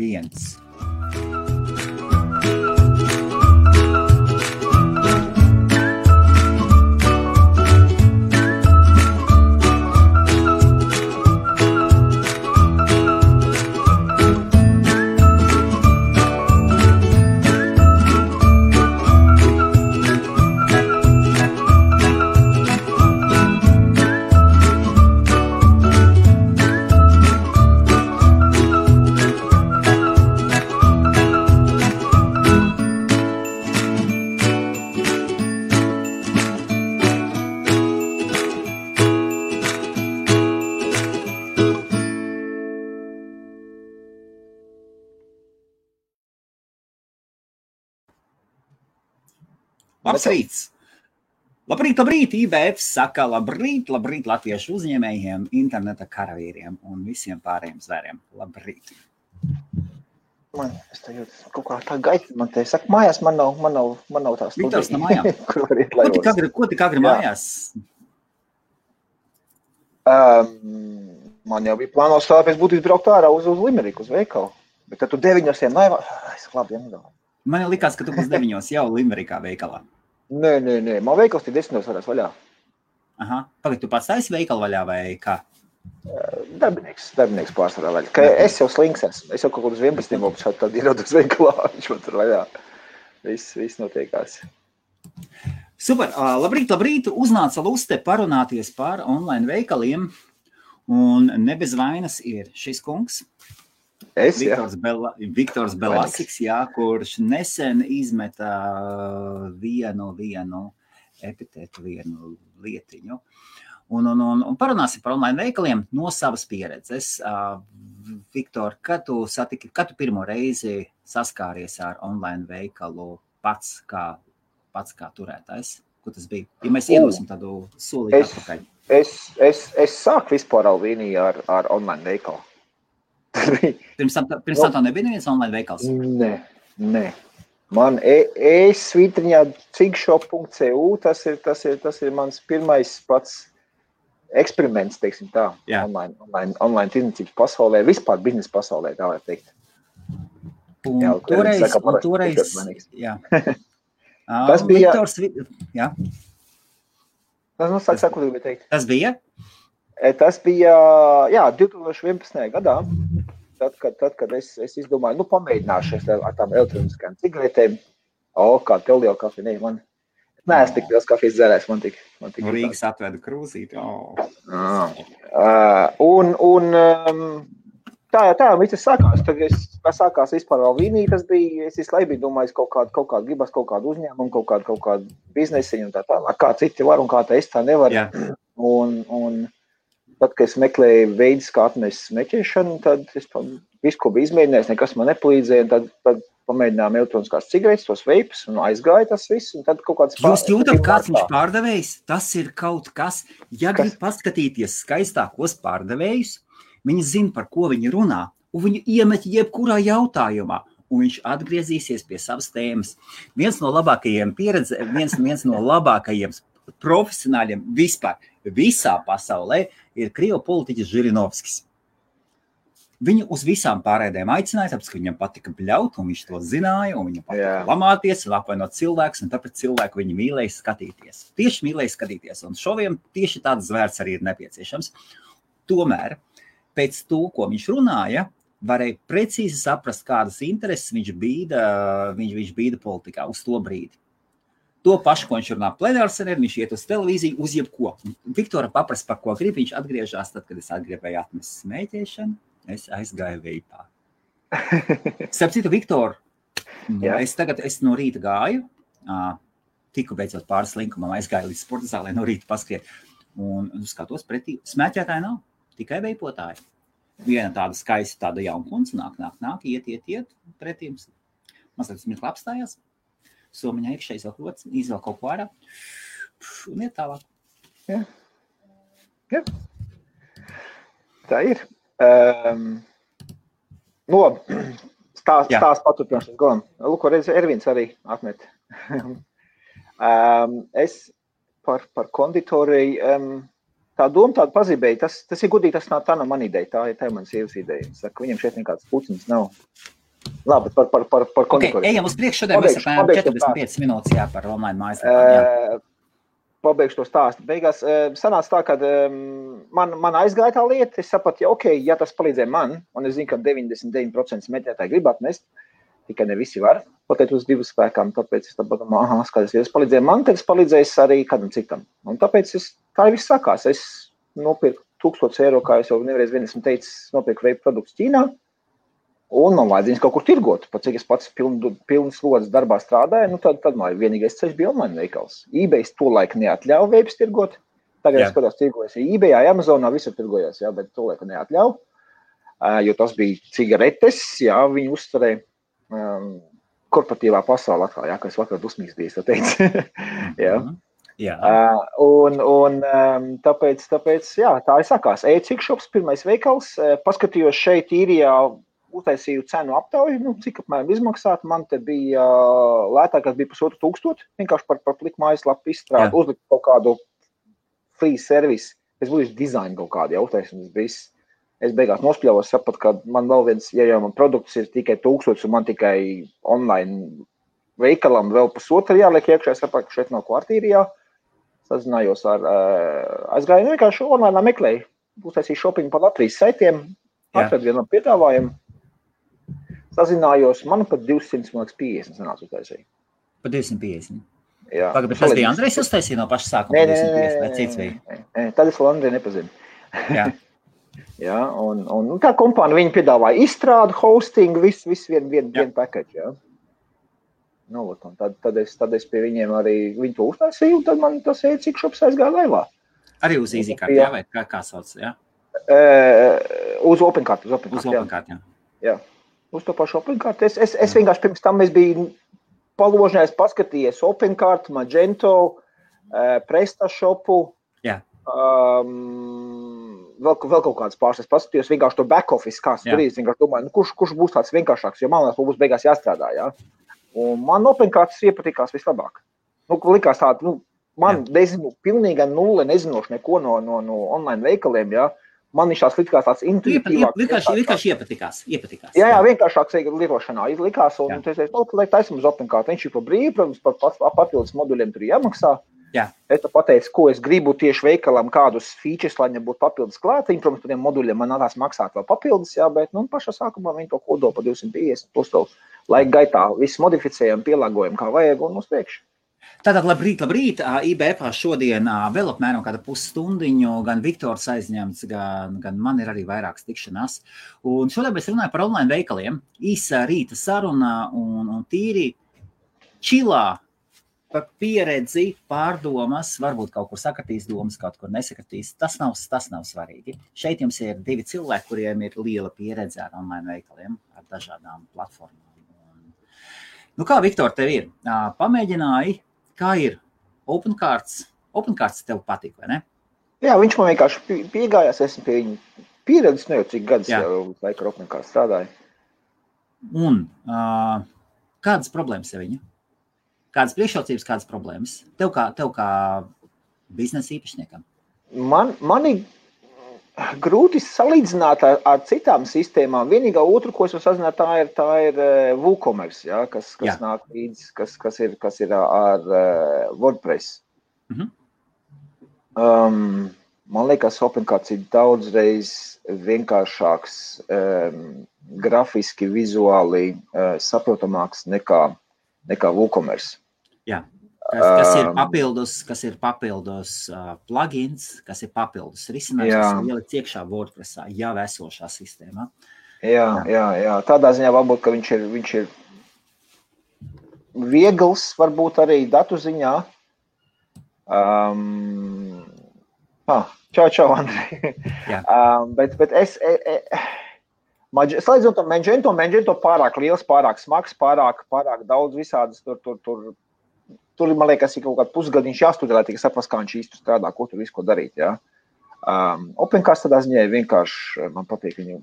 1. Labs rīts! Labrīt! IBF saka labrīt latviešu uzņēmējiem, interneta karavīriem un visiem pārējiem zvēriem. Labrīt! Es te jūtu kaut kā tā gaita, man te saka, mājās man nav tā studija. Viktors no mājām. Ko tik agri mājās? Man jau bija plānos tā, pēc būtības braukt ārā uz Limeriku, uz veikalu. Bet tad tu 9 laivā, es labi nedomāju. Man likās, ka tu būs 9 jau Limerikā veikalā. Nē, man veikals tie 10 varēs vaļā. Aha, pagad, tu pats taisi veikalu vaļā vai kā? Darbinieks pārsvarā vaļā. Ka es jau slinks esmu, es jau kaut uz 11 šādi tad ierodu uz veikalā, viņš man tur vaļā. Viss notiekās. Super, labrīt, uznāca luste parunāties par online veikaliem un ne bez vainas ir šis kungs. Viktors Belasiks, kurš nesen izmeta vienu epitetu, vienu lietiņu. Un parunāsim par online veikaliem no savas pieredzes. Viktor, kad tu pirmo reizi saskāries ar online veikalu pats kā turētājs? Ko tas bija? Ja mēs iedosim tādu solīti atpakaļ. Es sāku vispār Alvīniju ar online veikalu. Pirms tam tā nebija neviens online veikals? Nē. Man svītriņā cigshop.cu, tas ir mans pirmais pats eksperiments, teiksim tā, online tirdzniecības pasaulē, vispār biznesa pasaulē, tā var teikt. Toreiz, jā. Tas bija... Viktors, jā. Saka, ko tu gribēji teikt. Tas bija? Tas bija, 2011. gadā, tad, kad es izdomāju, pamēģināšu ar tām elektroniskajām cigaretēm. Kā tev liela kafija, man neesmu tik liels kafijas dzērājs, man tik Rīgas atvedu krūzīt, Tā, viss sākās. Tad sākās vispār vēl Vīnija, tas bija, es visu laiku biju domājis kaut kādu gribas, kaut kādu uzņēmumu, kaut kādu biznesiņu un tā tālāk, kā citi var un kā tā es tā nevaru. Un tad, kad es meklēju veidus, kā atmest smēķēšanu, tad es visu, ko biju izmēģinājis, nekas man nepalīdzēja, un tad pamēģinājām elektroniskās cigaretes, tos veipus, un aizgāja tas viss, un tad kaut kāds... Jūs jūtat, kāds viņš pārdevējs? Tas ir kaut kas, ja grib paskatīties skaistākos pārdevējus, viņi zina, par ko viņi runā, un viņi iemet jebkurā jautājumā, un viņš atgriezīsies pie savas tēmas. Viens no labākajiem viens no labākajiem profesionāļiem vispār visā pasaulē ir krievu politiķis Žirinovskis. Viņu uz visām pārēdēm aicināja, tāpēc, ka viņam patika bļaut, un viņš to zināja, un viņam patika lamāties un apvainot cilvēkus, un tāpēc cilvēku viņi mīlēja skatīties. Tieši mīlēja skatīties, un šoviem tieši tāds zvērts arī ir nepieciešams. Tomēr, pēc to, ko viņš runāja, varēja precīzi saprast, kādas intereses viņš bīda politikā uz to brīdi. To pašu, ko viņš runā plenārsēdē, viņš iet uz televīziju, uz jebko. Viktora paprast, par ko grib, viņš atgriežās tad, kad es atgribēju atmest smēķēšanu, es aizgāju veipā. Starp citu, Viktor, es no rīta gāju, tiku beidzot pāris linkumam, aizgāju līdz sporta zālē no rīta paskriet, un skatos pretī, smēķētāji nav, tikai veipotāji. Viena tāda skaista, tāda jaunkundze nāk, iet pretīm, mazliet smirkli apstājās. Somiņā iekšē izvēl kaut ko ārā un iet tālāk. Jā. Tā ir. Stāsts paturpināšanas galam. Lūko, reiz Ervins arī atmet. Es par konditoriju, tā doma tāda pazīmēja, tas ir gudīgi, tā nav mana ideja, tā ir manas sievas ideja. Saka, viņam šeit nekāds puciņas nav. Labi, par konditoriju. Ejam uz priekšu, šodien mēs apmēram 45 minūtes par online mājaslapām. Pabeigšu to stāstu. Beigās sanāca tā, ka man aizgāja tā lieta, es sapratu, ja tas palīdzēja man, un es zinu, ka 99% smēķētāji grib atmest, tikai ne visi var, pateikt uz divu spēkām, tāpēc es domāju, skaties, ja tas palīdzēja man, tad es palīdzēju arī kādam citam. Un tāpēc tā viss sākās. Es nopirku 1000 eiro, kā es jau nereiz vien esmu teicis, nopirku veipu produktus Ķīnā, un man vajadzījums kaut kur tirgot. Pat cik es pats pilnas slodzes darbā strādāju, tad man vienīgais ceļš bija online veikals. eBay tolaik neatļauj veipus tirgot. Tagad es skatos tirgojas eBay, Amazonā visur tirgojas, bet tolaik neatļauj, jo tas bija cigaretes, viņi uzturēja korporatīvā pasaulē atkal, kas vakar dusmīgs bija, tā teica. Un tāpēc, tā ir sakās. E-cikšops, pirmais veikals, paskatījos šeit īrijā, uztaisīju cenu aptauju, cik apmēram izmaksāt. Man te bija lētākās bija 1500, vienkārši par pliku mājaslapu izstrādi, uzlikt kaut kādu free service. Es būtu dizainu kaut kādu uztaisīju, viss. Es beigās nospļāvos, sapratu, ka man vēl viens, ja man produkts ir tikai 1000 un man tikai online veikalam vēl 1,5 jāliek iekšā, es sapratu, ka šeit nav kvartīrijā. Sazinājos aizgāju, vienkārši online meklēju. Uztaisīju shopping par Latvijas saitiem, atradu vienam piedāvājumu. Sazinājos, man pat 250 sanāca uztaisīju. Pa 250? Jā. Pagad, bet tas bija Andrejs uztaisīja no paša sākuma 250, vai cits bija? Tad es vēl Andreju nepazinu. Jā. Ja, un tā kompānija viņi piedāvāja izstrādu, hosting, visu vienu package, Tad es pie viņiem arī viņu to uztaisīju, un tad man tas e-cikšops aizgāja laivā. Arī uz EasyCard, vai kā sauc, Uz OpenCard, Uz OpenCard, jā. Uz to pašu OpenCard. Es vienkārši pirms tam es biju paložņājis, paskatījies OpenCard, Magento, PrestaShopu, vēl kaut kādas pārstas paskatījos, vienkārši to back office, kāds tur ir, vienkārši domāju, kurš būs tāds vienkāršāks, jo man būs beigās jāstrādā, Un man OpenCards iepatikās vislabāk. Likās tāda, man nezinu, pilnīga nulle, nezinoši neko no online veikaliem, Man viņš tās likās tāds intuitīvāks. Vienkārši iepatikās. Jā, vienkāršāks lietošanā likās, un es taisam uz OpenCard. Viņš ir par brīvu, protams, par papildus moduļiem tur jāmaksā. Es pateicu, ko es gribu tieši veikalam, kādus features, lai viņam būtu papildus klāt. Protams, par tiem moduļiem man nākās maksāt vēl papildus, bet pašā sākumā viņi to kodo pa 250, plus to laika gaitā visu modificējam, pielāgojam, kā vajag, un uz priekšu. Tātad labrīt. IBF šodien vēl apmēram kāda pusstundiņu, gan Viktors aizņemts, gan man ir arī vairākas tikšanās. Un šodien mēs runājam par online veikaliem. Īsa rīta saruna un tīri čilā par pieredzi, pārdomas, varbūt kaut kur sakatīs domas, kaut kur nesakatīs. Tas nav svarīgi. Šeit jums ir 2 cilvēki, kuriem ir liela pieredze ar online veikaliem, ar dažādām platformām. Kā, Viktor, tev ir? Pamēģināji, kā ir OpenCards? OpenCards tev patīk, vai ne? Jā, viņš man vienkārši piegājās, esmu pie viņa pieredzes, jau cik gadus jau laika ar OpenCards strādāju. Un kādas problēmas ir viņa? Kādas priekšrocības, kādas problēmas? Tev kā biznesa īpašniekam? Mani grūti salīdzināt ar citām sistēmām. Vienīgā otru, ko es varu sazināt, tā ir WooCommerce, kas nāk līdz, kas ir ar WordPress. Man liekas, OpenCards ir daudzreiz vienkāršāks, grafiski, vizuāli saprotamāks nekā WooCommerce. Jā. Kas ir papildus plugins, kas ir papildus risinājums, kas ir ielikt iekšā WordPressā, jau esošā sistēmā. Jā. Tādā ziņā varbūt, ka viņš ir viegls, varbūt arī datu ziņā. Čau, Andrej. Bet es... Slēdzot to Magento pārāk liels, pārāk smags, pārāk daudz visādas tur, man liekas, ir kaut kāds pusgadiņš jāstudē, lai tikai saprast, kā viņš īsti strādā, ko tur visu ko darīt, OpenCards tādā ziņā vienkārši, man patīk viņu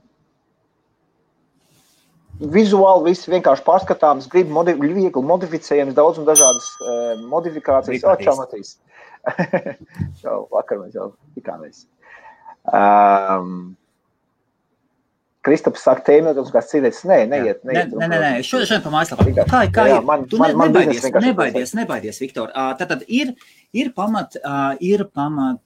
vizuāli viss vienkārši pārskatāms, viegli modificējams, daudz un dažādas modifikācijas. Vakar mēs jau tikāmies. Kristaps saka, tēmētums kāds cīdēts. Neiet. Nē. Šodien pa mājaslapā. Kā ir? Nebaidies, Viktor. Tātad ir pamat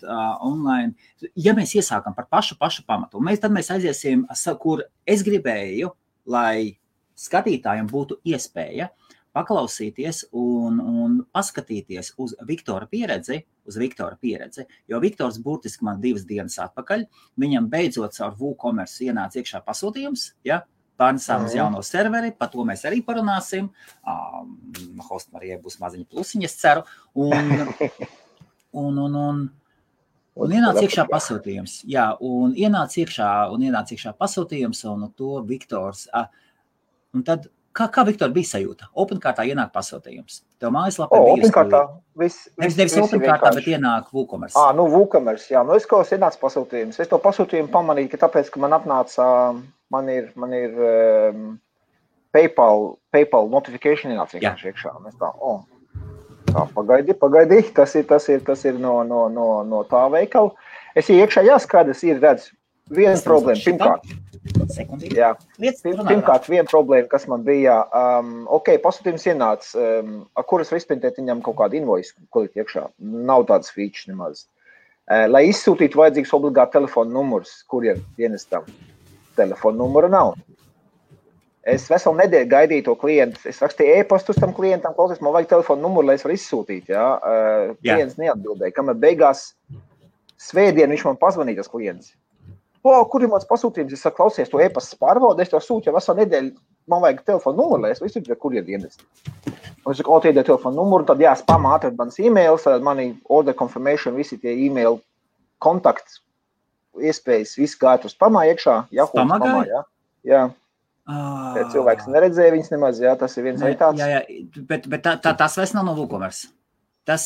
online. Ja mēs iesākam par pašu pamatu, tad mēs aiziesim, kur es gribēju, lai skatītājiem būtu iespēja paklausīties un paskatīties uz Viktora pieredzi, jo Viktors burtiski man 2 dienas atpakaļ, viņam beidzot caur WooCommerce ienāca iekšā pasūtījums, pārnesām uz jauno serveri, par to mēs arī parunāsim, host Marijai būs maziņa plusiņa, es ceru, un ienāca iekšā pasūtījums, un ienāca iekšā pasūtījums, un to Viktors, un tad, Kā Viktor bija sajūta? OpenCartā ienāk pasūtījums. Tev mājaslapē bija OpenCartā nevis OpenCartā, bet ienāk WooCommerce. WooCommerce, jā. Es kaut kāds ienāca pasūtījums. Es to pasūtījumu pamanīju, ka tāpēc, ka man atnāca, man ir PayPal notification ienāca vienkārši iekšā. Un es tā, pagaidi, tas ir no tā veikala. Es iekšā jāskatās, ir redz viena problēma, pirmkārt. Pirmkārt, viena problēma, kas man bija, pasūtījums ienāca, ar kuras var izprintēt viņam kaut kādu invoice, ko likt iekšā. Nav tādas features nemaz. Lai izsūtītu vajadzīgs obligāti telefona numurs, kuriem dienestam. Telefona numura nav. Es veselu nedēļu gaidīju to klientu. Es rakstīju e-pastu tam klientam, klausies, man vajag telefona numuru, lai es varu izsūtīt. Klients neatbildēja. Kamēr beigās svētdien viņš man pazvanīja, tas klients. Kur ir mans pasūtījums? Es saku, klausies, to e-pastas pārbaudu, es to sūtu jau veselu nedēļu, man vajag telefonu numuru, lai es visu ir, kur ir dienesti. Un es saku, iedēju telefonu numuru, tad spamā atrad manas e-mails, mani order confirmation, visi tie e-mail kontakts, iespējas, viss gāja uz spamā iekšā. Spamā, jā. Cilvēks neredzēja viņas nemaz, tas ir viens vai tāds. Jā, bet tas vairs nav no WooCommerce. Tas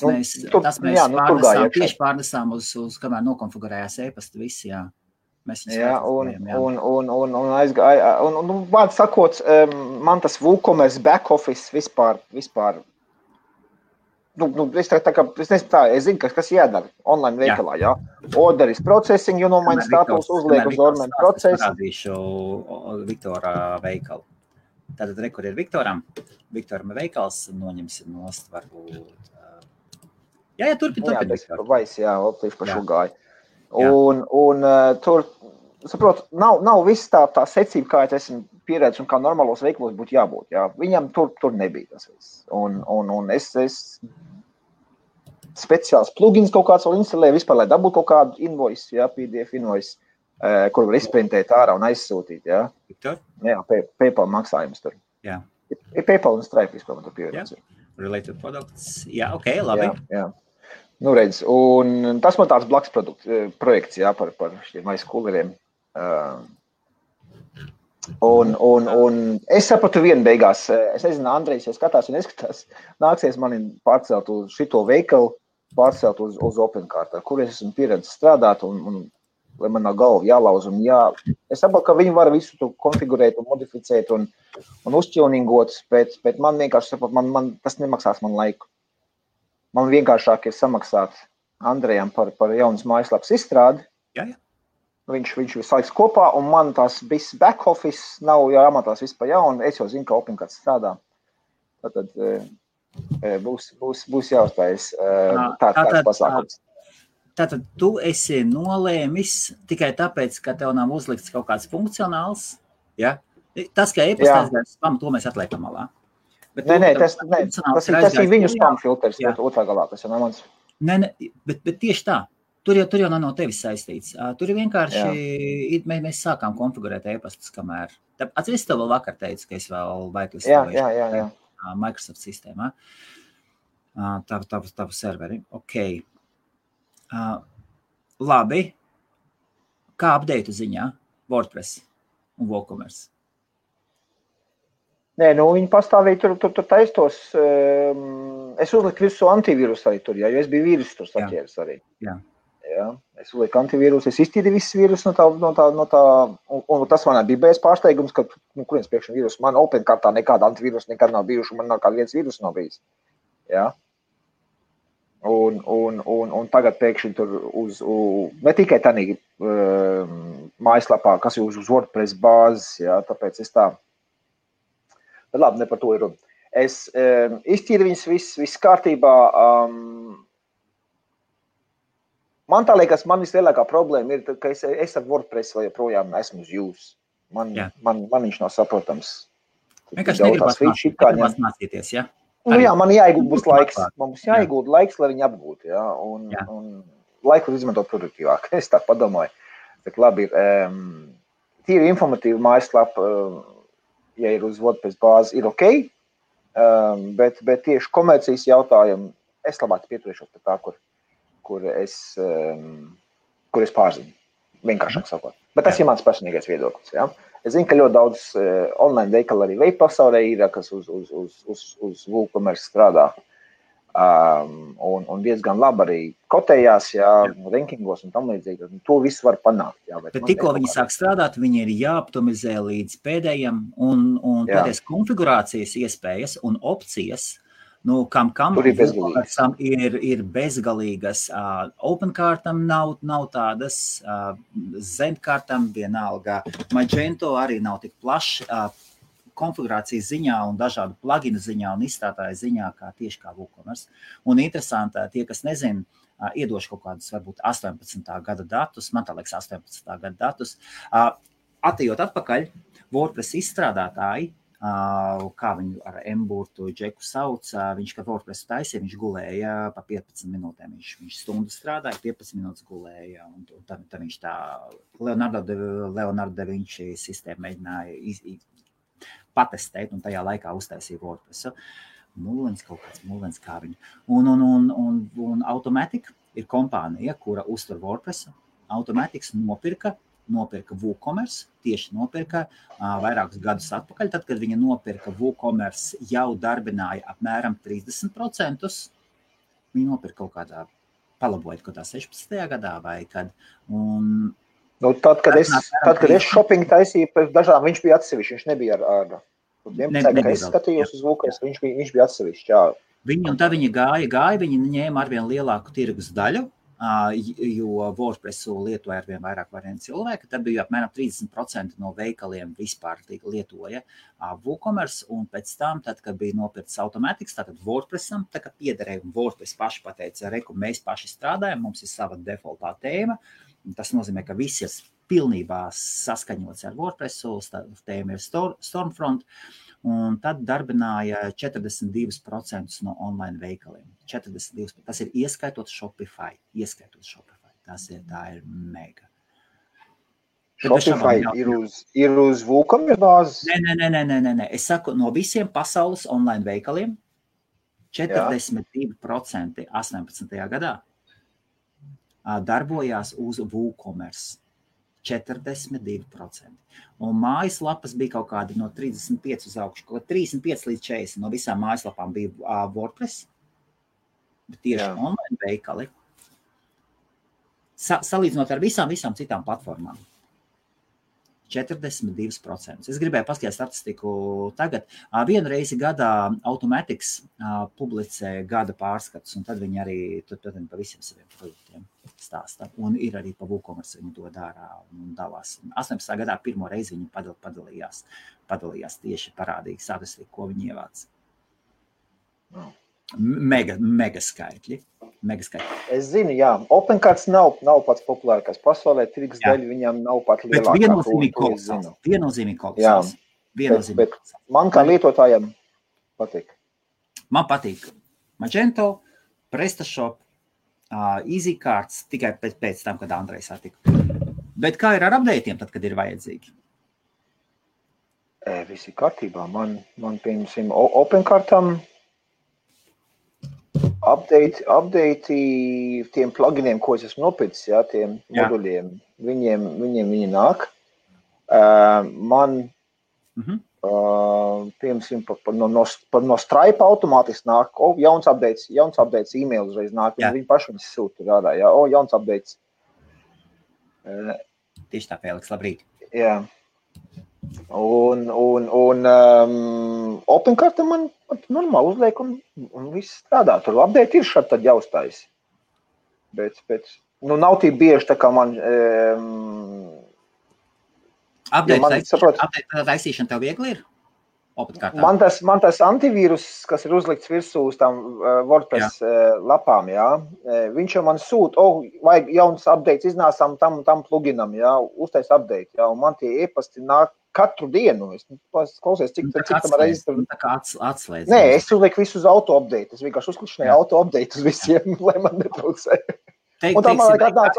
mēs tieši pārnesām uz kamēr nokonfigurējās e-pasta visi, un vārdu sakot, man tas WooCommerce back office vispār, es zinu, kas jādara online veikalā, Order is processing, maina status, uzliek uz orderu procesu. Parādīšu Viktora veikalu. Tātad kur ir Viktoram veikals, noņemsim nost varbūt. Turpin. Tieši pa šo gāju. Un tur, saprot, nav viss tā secība, kā es esmu pieredzis un kā normālos veikalos būtu jābūt. Viņam tur nebija tas viss. Un es speciāls plugins kaut kāds vēl instalēju vispār, lai dabūtu kaut kādu invoice, PDF invoice, kur var izprintēt ārā un aizsūtīt, Viktor? PayPal maksājums tur. Ir PayPal un Stripe vispār, man tur pieredzi. Related products. Labi. Jā. Redz, un tas man tāds blakus projekts, par šiem aizkuleriem. Un es sapratu vienu beigās, es nezinu, Andrejs, ja skatās un neskatās, nāksies mani pārcelt uz šito veikalu, pārcelt uz OpenCart, kur es esmu pieredzis strādāt un lai man nav galva jālauz un Es saprotu, ka viņi var visu to konfigurēt un modificēt un uzķilningot, bet man vienkārši saprot, man tas nemaksās man laiku. Man vienkāršāk ir samaksāt Andrejam par jaunas mājaslapas izstrādi. Viņš saliks kopā, un man tās viss back office nav jāmatās viss pa jaunu. Es jau zinu, ka OpenCart strādā. Tad būs jāuztājas tāds pasākums. Tātad tu esi nolēmis tikai tāpēc, ka tev nav uzlikts kaut kāds funkcionāls, Tas, ka e-pastās spam, to mēs atliekam malā. Nē, tas ir viņu spam filters, otrā galā, tas jau nav mans. Nē, bet tieši tā. Tur jau nav no tevis saistīts. Tur ir vienkārši, mēs sākām konfigurēt e-pastus, kamēr. Atceries, tev vēl vakar teicu, ka es vēl Jā. Microsoft sistēmā. Tavu serveri. Ok. Labi. Kā update ziņā? WordPress un WooCommerce. Nē, viņi pastāvīja tur taistos. Es uzliku visu antivīrusu arī tur, jo es biju vīrusu tur saķēris arī. Jā. Es uzliku antivīrusu, es iztīdīju visu vīrusu no tā, un tas manā bija bez pārsteigums, ka, kurienes priekšana vīrusu, man OpenCartā nekāda antivīrusu nekad nav bijuši, man nekāda viens vīrusu nav bijis. Jā. Un tagad pēkšņi tur ne tikai tādā mājaslapā, kas ir uz WordPress bāzes, jā, tāpēc es tā. Bet labi, ne par to ir runa. Es iztīru viņas viss kārtībā. Man tā liekas, man vislielākā problēma ir, ka es ar WordPress vai joprojām esmu uz jūs. Man viņš nav saprotams. Vienkārši negribas mācīties, jā? Nu jā, man jāiegūt laiks. Man būs jāiegūt laiks, lai viņi apgūtu, jā. Un laiku izmantot produktīvāk. Es tā padomāju. Bet labi, tīri informatīva mājaslapa, ja ir uz WordPress bāzi, ir ok. Bet tieši komercijas jautājumu es labāk pieturēšos pie tā, kur es pārzinu. Vienkāršāk sakot. Bet tas ir mans personīgais viedoklis, jā. Es zinu, ka ļoti daudz online veikali arī veip pasaulē ir, kas uz WooCommerce strādā. Un diezgan labi arī kotējās, jā, rankingos un tam līdzīgi. To visu var panākt. Jā, bet tikko viņi sāk strādāt, viņi ir jāoptimizē līdz pēdējiem un pēdējais konfigurācijas iespējas un opcijas. Nu, kam ir bezgalīgas. OpenCartam nav tādas, Zenkartam vienalga. Magento arī nav tik plašs konfigurācijas ziņā un dažādu pluginu ziņā un izstrādāju ziņā, tieši kā WooCommerce. Un interesanti, tie, kas nezin, iedošu kaut kādus, varbūt 18. gada datus, man tā liekas 18. gada datus. Atejot atpakaļ, WordPress izstrādātāji, kā viņu ar M-burtu Džeku sauc, viņš, kad WordPress taisīja, viņš gulēja pa 15 minūtēm. Viņš stundu strādāja, 15 minūtes gulēja. Un tad viņš tā Leonardo da Vinci sistēmu mēģināja patestēt un tajā laikā uztaisīja WordPress. Mullens kā viņu. Un Automatic ir kompānija, kura uztur WordPress. Automatics nopirka WooCommerce, tieši nopirka vairākus gadus atpakaļ. Tad, kad viņa nopirka WooCommerce, jau darbināja apmēram 30%. Viņa nopirka kaut kādā, palabojot kaut kā 16. gadā vai kad. Tad, kad es shopping taisīju, pēc dažām viņš bija atsevišķi, viņš nebija ar 11. kad es skatījos uz WooCommerce, viņš bija atsevišķi, jā. Un tā viņa gāja, viņa ņēma arvien lielāku tirgus daļu, jo WordPressu lietoja arvien vairāk cilvēki, tad bija apmēram 30% no veikaliem vispār lietoja WooCommerce, un pēc tam, tad, kad bija nopirkts Automatics, tātad WordPressam, tā kā piederēja, un WordPress paši pateica, mēs paši strādājam, mums ir sava defaultā tēma, tas nozīmē, ka viss ir pilnībā saskaņots ar WordPressu, tēma ir Stormfront, un tad darbināja 42% no online veikaliem. 42%. Tas ir ieskaitot Shopify. Tā ir mega. Shopify ir uz WooCommerce bāzes? Nē. Es saku, no visiem pasaules online veikaliem 42% 18. gadā darbojās uz WooCommerce. 42%. Un mājaslapas bija kaut kādi no 35 uz augšu, kaut 35 līdz 40 no visām mājaslapām bija WordPress, bet tieši online veikali, salīdzinot ar visām citām platformām. 42%. Es gribēju paskatīt statistiku tagad. Vienu reizi gadā Automatics publicē gada pārskats, un tad viņi arī pa visiem saviem produktiem stāsta. Un ir arī pa WooCommerce viņi to dara un dalās. 18. gadā pirmo reizi viņi padalījās tieši parādīgi statistiku, ko viņi ievāc. Mega skaitļi. Es zinu, jā. OpenCards nav pats populārākais pasaulē, tirgus daļa viņam nav pat lielākā. Bet viennozīmīgi kolosāls. Bet man kā lietotājam patīk. Man patīk Magento, PrestaShop, EasyCards, tikai pēc tam, kad Andrejs satika. Bet kā ir ar updateiem tad, kad ir vajadzīgi? Visi kārtībā. Man piemēram, OpenCardam update tiem pluginiem, ko es esmu nopircis, jā, tiem moduļiem, viņiem viņi nāk. Man, piemēram, no Stripe automātiski nāk, jauns updates e-mail uzreiz nāk, viņi paši viņas sūta rādā, jā, jauns updates. Tieši tā, Fēliks, labrīt. Jā. Un OpenCart man normāli uzliek un viss strādā. Tur update ir šādi tad jāuztais. Bet nav tī bieži tā kā man... Update taisīšana tev viegli ir? Man tas antivīrus, kas ir uzlikts virsū uz tām WordPress lapām, jā, viņš jau man sūt, vajag jauns updates iznāsām tam pluginam, jā, uztais update, jā, un man tie e-pasti nāk katru dienu. Es klausies, cik tam reizes tur... Tā kā atslēdz. Nē, es uzlieku visu uz auto-update. Es vienkārši uzklišanēju auto-update uz visiem, lai man netraucē. Un tā man vajag atnāc,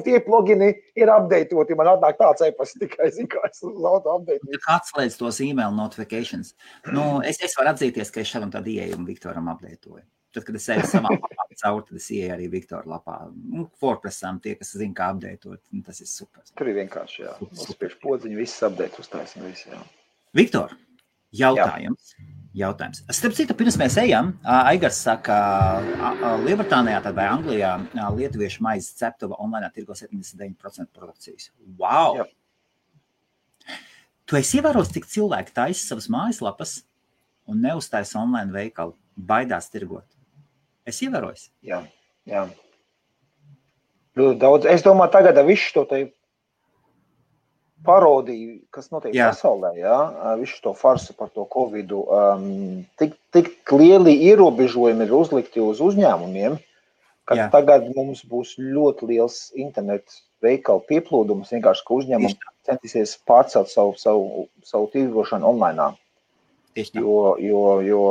tie plugini ir updateoti, man atnāk tāds e-pasts tikai, zinu, kā es uz auto-update. Tā kā atslēdz tos email notifications. Es varu atzīties, ka es šādam tādu ieejumu Viktoram updatēju. Tad, kad es eju savā lapā caur, tad es ieeju arī Viktora lapā. WordPressām tie, kas zina, kā updatēt, tas ir super. Tur ir vienkārši, jā. Uzspiež podziņu, viss update uztaisim, viss, jā. Viktor, jautājums. Starp citu, pirms mēs ejam, Aigars saka, Lielbritānijā vai Anglijā lietuviešu maizes ceptuva online tirgo 79% produkcijas. Wow! Jā. Tu esi ievērojis, cik cilvēki taisa savas mājaslapas un neuztaisa online veikalu, baidās tirgot? Es ievērojis? Jā. Daudz. Es domāju, tagad visu to te parodiju, kas notiek pasaulē, jā, visu to farsu par to Covidu, tik lieli ierobežojumi ir uzlikti uz uzņēmumiem, ka tagad mums būs ļoti liels internetu veikalu pieplūdums, vienkārši, ka uzņēmumi centīsies pārcelt savu tirgošanu online. Jo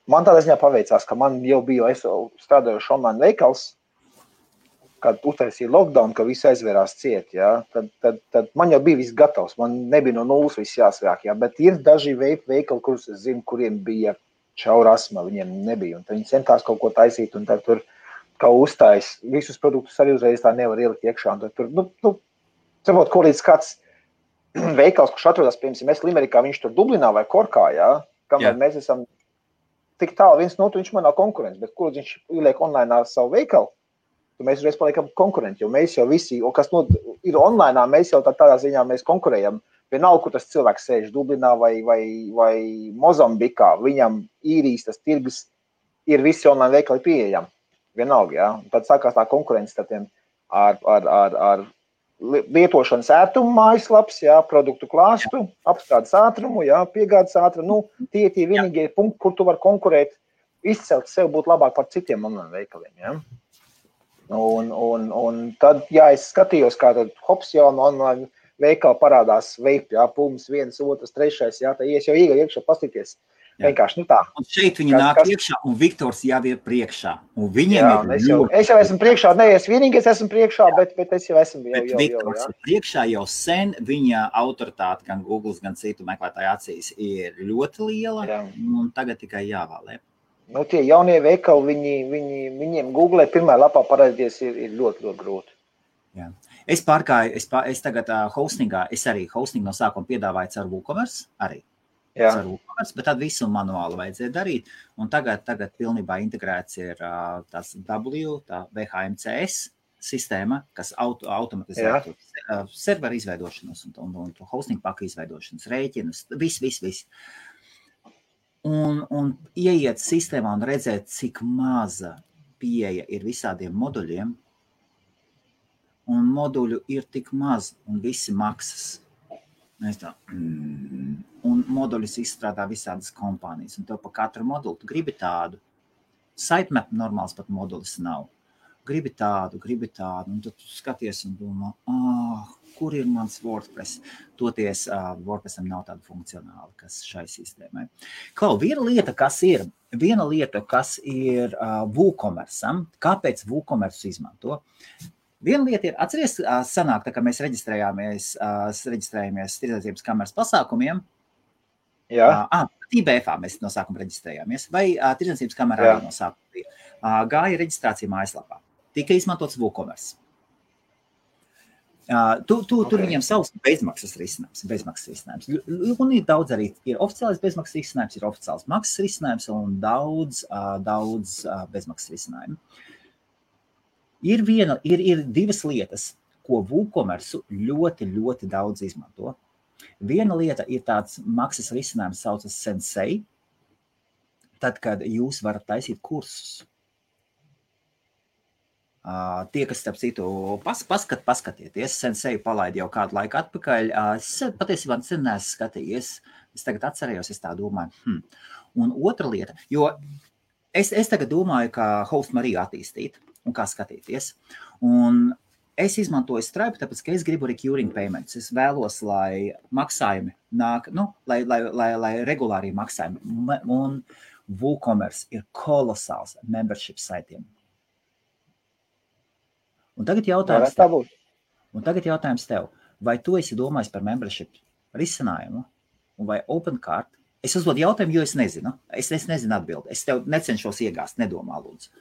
man tādā ziņā paveicās, ka man jau bija, es strādājuši online veikals, kad uztaisīja lockdown, ka viss aizvērās ciet, jā, tad man jau bija viss gatavs, man nebija no nulles viss jāsvāk, jā, bet ir daži veikali, kurus es zinu, kuriem bija čaura asma, viņiem nebija, un viņi centās kaut ko taisīt, un tad tur kā uztais, visus produktus arī uzreiz tā nevar ielikt iekšā, un tad tur, saprot, ko līdz kāds veikals, kurš atrodas, piemēram, mēs Limerikā, viņš tur Dublinā vai Korkā, jā, kamēr mēs esam tik tālu viens no otru, viņš man nav konkurents, bet kur viņš ieliek online savu veikalu, mēs uzreiz paliekam konkurenti, jo mēs jau visi, kas ir online, mēs jau tādā ziņā mēs konkurējam. Vienalga, kur tas cilvēks sēž Dublinā vai Mozambikā, viņam īrijas tas tirgus ir visi online veikali pieejami. Vienalga, jā. Tad sākās tā konkurence ar lietošanas ērtumu mājaslaps, jā, produktu klāstu, apstrādes ātrumu, jā, piegādes ātrumu. Tie vienīgie punkti, kur tu var konkurēt, izcelt sev būt labāk par citiem online veikaliem, jā. Un tad, jā, es skatījos, kā tad hops jau online veikali parādās vape, jā, pums, 1, 2, 3, jā, tā ies jau iekšā pastīties. Vienkārši, tā. Un šeit viņi nāk iekšā, un Viktors jau ir priekšā. Un viņiem es jau esmu priekšā, ne, es vienīgais esmu priekšā, bet es jau esmu jau. Viktors ir priekšā jau sen, viņa autoritāte gan Google, gan citu meklētāju acīs ir ļoti liela, un tagad tikai jāvēlē. Tie jaunie veikali, viņiem Google pirmā lapā parādīties ir ļoti, ļoti grūti. Jā. Es pārgāju, es tagad hostingā, es arī hostingu no sākuma piedāvāju caur WooCommerce, arī. Caur WooCommerce, bet tad visu manuāli vajadzēja darīt. Un tagad pilnībā integrēts ir tās VHMCS sistēma, kas automatizē serveru izveidošanas un hosting paka izveidošanas rēķinus, viss. Un ieiet sistēmā un redzēt, cik maza pieeja ir visādiem moduļiem, un moduļu ir tik maz, un visi maksas. Un moduļus izstrādā visādas kompānijas, un tev pa katru modulu tu gribi tādu. Sitemap normāls pat modulis nav. Gribi tādu, un tad tu skaties un domā, kur ir mans WordPress? Toties WordPressam nav tāda funkcionāla, kas šai sistēmai. Klau, viena lieta, kas ir WooCommerce'am, kāpēc WooCommerce izmanto? Viena lieta ir, atceries, sanāk, tā kā mēs reģistrējāmies tirdzniecības kameras pasākumiem. Jā. IBF-ā mēs no sākuma reģistrējāmies, vai tirdzniecības kamerā no sākuma bija. Gāja reģistrācija mājaslapā. Tika izmantots WooCommerce. Tur viņiem savs bezmaksas risinājums. Un ir daudz arī, ir oficiālais bezmaksas risinājums, ir oficiāls maksas risinājums un daudz bezmaksas risinājumu. Ir divas lietas, ko WooCommerce ļoti, ļoti daudz izmanto. Viena lieta ir tāds maksas risinājums saucas Sensei, tad, kad jūs varat taisīt kursus. Tie, kas starp citu paskatieties, Sensei palaid jau kādu laiku atpakaļ, es patiesībā sen neesmu skatījies, es tagad atcerējos, es tā domāju. Un otra lieta, jo es tagad domāju, kā Host Mariju attīstīt un kā skatīties, un es izmantoju Stripe, tāpēc, ka es gribu recurring payments, es vēlos, lai maksājumi nāk, lai regulāri maksājumi, un WooCommerce ir kolosāls membership saitiem. Un tagad jautājums tev, vai tu esi domājis par membership risinājumu, un vai OpenCart? Es uzdodu jautājumu, jo es nezinu. Es nezinu atbildi. Es tev necenšos iegāst, nedomā, lūdzu.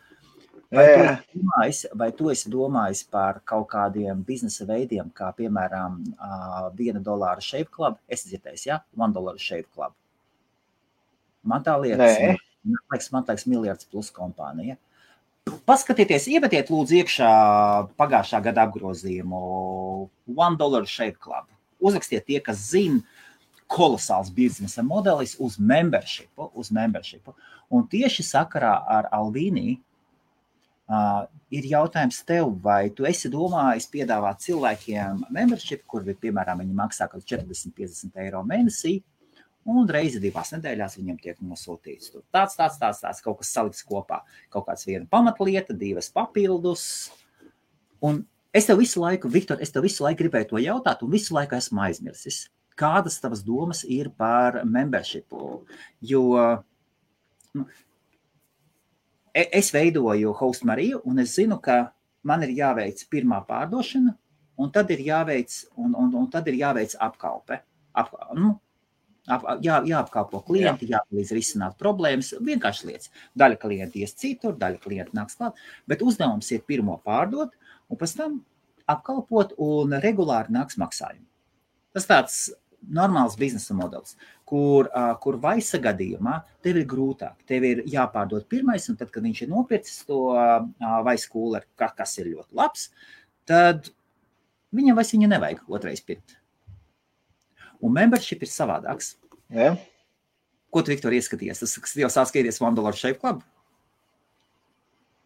Vai tu esi domājis par kaut kādiem biznesa veidiem, kā piemēram $1 Shave Club? Es dzirdēju, ja? $1 Shave Club. Man tā liekas, man liekas miljards plus kompānija. Paskatieties, iemetiet lūdzu iekšā pagājušā gada apgrozījumu $1 Shave Club. Uzrakstiet tie, kas zina kolosāls biznesa modelis uz membershipu. Un tieši sakarā ar Alvīnī ir jautājums tev, vai tu esi domājis piedāvāt cilvēkiem membership, kur, piemēram, viņi maksā kaut 40-50 eiro mēnesī, un reizi 2 nedēļās viņam tiek nosūtīts. Tāds, kaut kas salikts kopā. Kaut kāds viena pamatlieta, 2 papildus. Un es tev visu laiku, Viktor, gribēju to jautāt, un visu laiku esmu aizmirsis. Kādas tavas domas ir par membershipu? Jo es veidoju Host Mariju, un es zinu, ka man ir jāveic pirmā pārdošana, un tad ir jāveic apkalpe. Jāapkalpo klienti, jāpalīdz risināt problēmas, vienkārši lietas. Daļa klienti ies citur, daļa klienti nāks klāt, bet uzdevums ir pirmo pārdot, un pēc tam apkalpot, un regulāri nāks maksājumi. Tas tāds normāls biznesa modelis, kur vaisa gadījumā tev ir grūtāk. Tev ir jāpārdod pirmais, un tad, kad viņš ir nopircis to vaisa kūleri, kas ir ļoti labs, tad viņam vairs viņu nevajag otrais pirkt. Un membership ir savādāks. Ja. Ko tu, Viktor, ieskaties? Tas jau sāk skaties $1 Shave Club?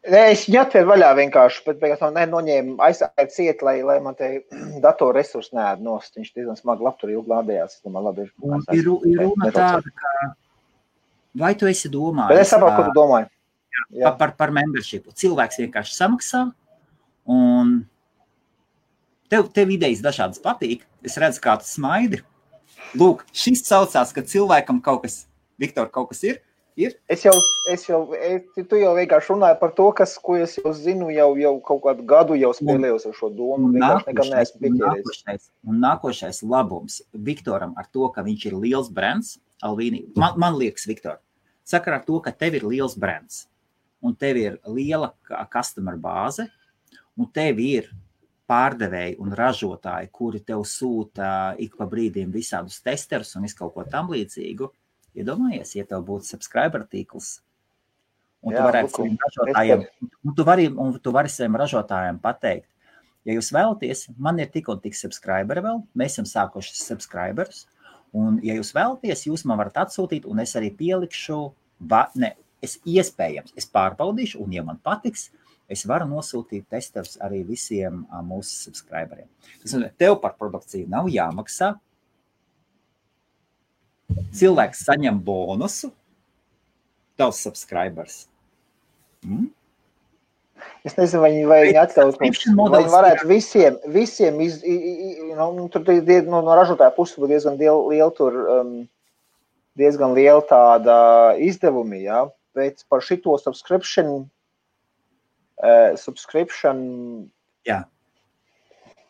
Es viņu atveru vaļā vienkārši, bet beigās man noņēma aizsākt ciet, lai man te datoru resursi neēd nost. Viņš diezgan smagi labtur ilgi lādējās. Ir runa tāda, ka vai tu esi domājis? Bet es saprotu, ko tu domāji. Par membershipu. Cilvēks vienkārši samaksā, un tev idejas dažādas patīk. Es redzu, kā tu smaidi. Lūk, šis saucās, ka cilvēkam kaut kas, Viktor, kaut kas ir? Tu jau vienkārši runāji par to, ko es jau zinu, jau kaut kādu gadu jau spēlējos ar šo domu. Un nākošais labums Viktoram ar to, ka viņš ir liels brands, Alvīnī, man liekas, Viktor, sakarā ar to, ka tev ir liels brands, un tev ir liela customer bāze, un tev ir pārdevēji un ražotāji, kuri tev sūta ik pa brīdiem visādus testerus un visu kaut ko tam līdzīgu. Iedomājies, ja tev būtu subscriber tīkls, un tu vari saviem ražotājiem pateikt, ja jūs vēlaties, man ir tik un tik subscriberi vēl, mēs esam sākuši subscriberus, un ja jūs vēlaties, jūs man varat atsūtīt, un es arī pielikšu, es pārbaudīšu, un ja man patiks, es varu nosūtīt testerus arī visiem mūsu subscriberiem. Tev par produkciju nav jāmaksā. Cilvēks saņem bonusu, tavs subscribers. Es nezinu, vai viņi atļaut mums, vai varētu visiem no ražotāja puses būtu diezgan liela tāda izdevumi, ja? Bet par šito subscription jā.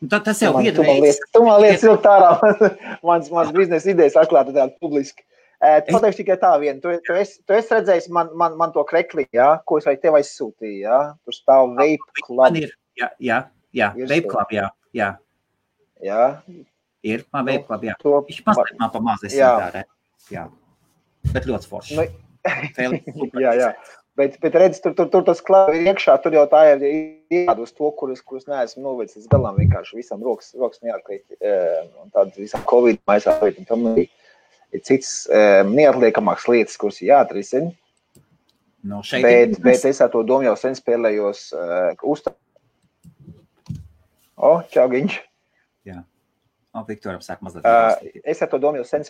Tas jau viena veids. Tu man lietas ilgt ārā. Mans biznesa idejas atklāta tāda publiski. Pateikšu tikai tā viena. Tu esi redzējis man to krekli, ja? Ko es vai tev aizsūtīju, ja? Tur stāv Vape Club. Jā, Vape Club, jā. Jā? Ir, man Vape Club, jā. Viņš mazliet man pamazes tā, jā. Bet ļoti forši. Jā. Bet redz, tur tas klāv ir iekšā, tur jau tā ir jādod uz to, kurus neesmu novedis līdz galām, vienkārši visam rokas neatkrīt, un tādas visam Covid maisā, un tam ir cits neatliekamāks lietas, kuras ir jāatrisina. No, šeit bet es ar to domu jau sen spēlējos čau, Giņš. Jā. Viktoram sāk mazliet. Es ar to domu jau sen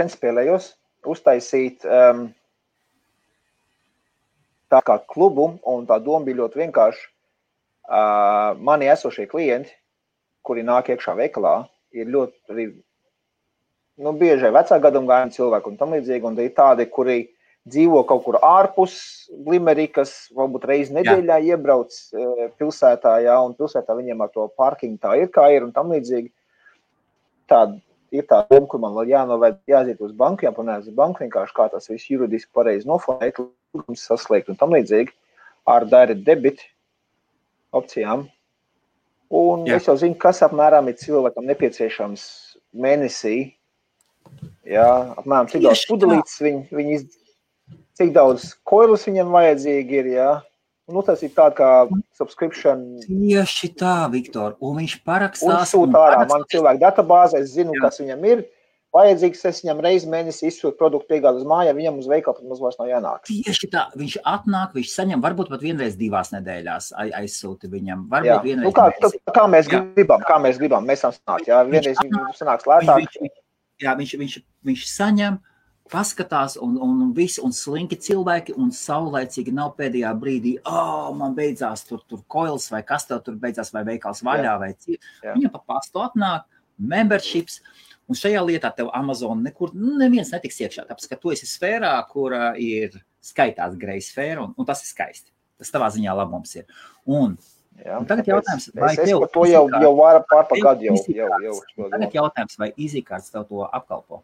spēlējos uztaisīt tā kā klubu, un tā doma bija ļoti vienkārši. Mani esošie klienti, kuri nāk iekšā veikalā, ir ļoti arī, bieži vecā gadumgājuma cilvēki un tam līdzīgi, un ir tādi, kuri dzīvo kaut kur ārpus Limerikas, varbūt reizi nedēļā iebrauc pilsētā, un pilsētā viņiem ar to parkingu tā ir, kā ir, un tam līdzīgi. Ir tā doma, kur man vēl jāiziet uz banku, jāpanēs uz banku, vienkārši kā tas viss juridiski pareizi noformēt, saslēgt un tam līdzīgi, ar direct debit opcijām. Un es jau zinu, kas apmēram ir cilvēkam nepieciešams mēnesī, apmēram cik daudz pudelītes cik daudz koilus viņam vajadzīgi ir, tas ir tā kā subscription. Tieši tā, Viktor, un viņš parakstās. Un sūta ārā man cilvēku databāze, es zinu, kas viņam ir. Vajadzīgs, es viņam reizi mēnesi izsūtu produktu piegādu uz māju, viņam uz veikalu pat maz vairs nav jānāk. Tieši tā, viņš atnāk, viņš saņem, varbūt pat vienreiz 2 nedēļās aizsūti viņam, varbūt vienreiz. Kā mēs gribam, mēs sanāk, vienreiz sanāks lētāk. Viņš saņem, paskatās un visi, un slinki cilvēki, un saulaicīgi nav pēdējā brīdī, man beidzās tur koils, vai kas tev tur beidzās, vai veikals vaļā, vai cik. Viņam pa pastu atnāk, memberships, un šajā lietā tev Amazon nekur, neviens netiks iekšā, tāpēc, ka tu esi sfērā, kura ir skaitās grey sfēra, un tas ir skaisti. Tas tavā ziņā labums ir. Un tagad jautājums, vai tev... Es par to jau varu pārpagad jau. Tagad jautājums, vai EasyCards tev to apkalpo?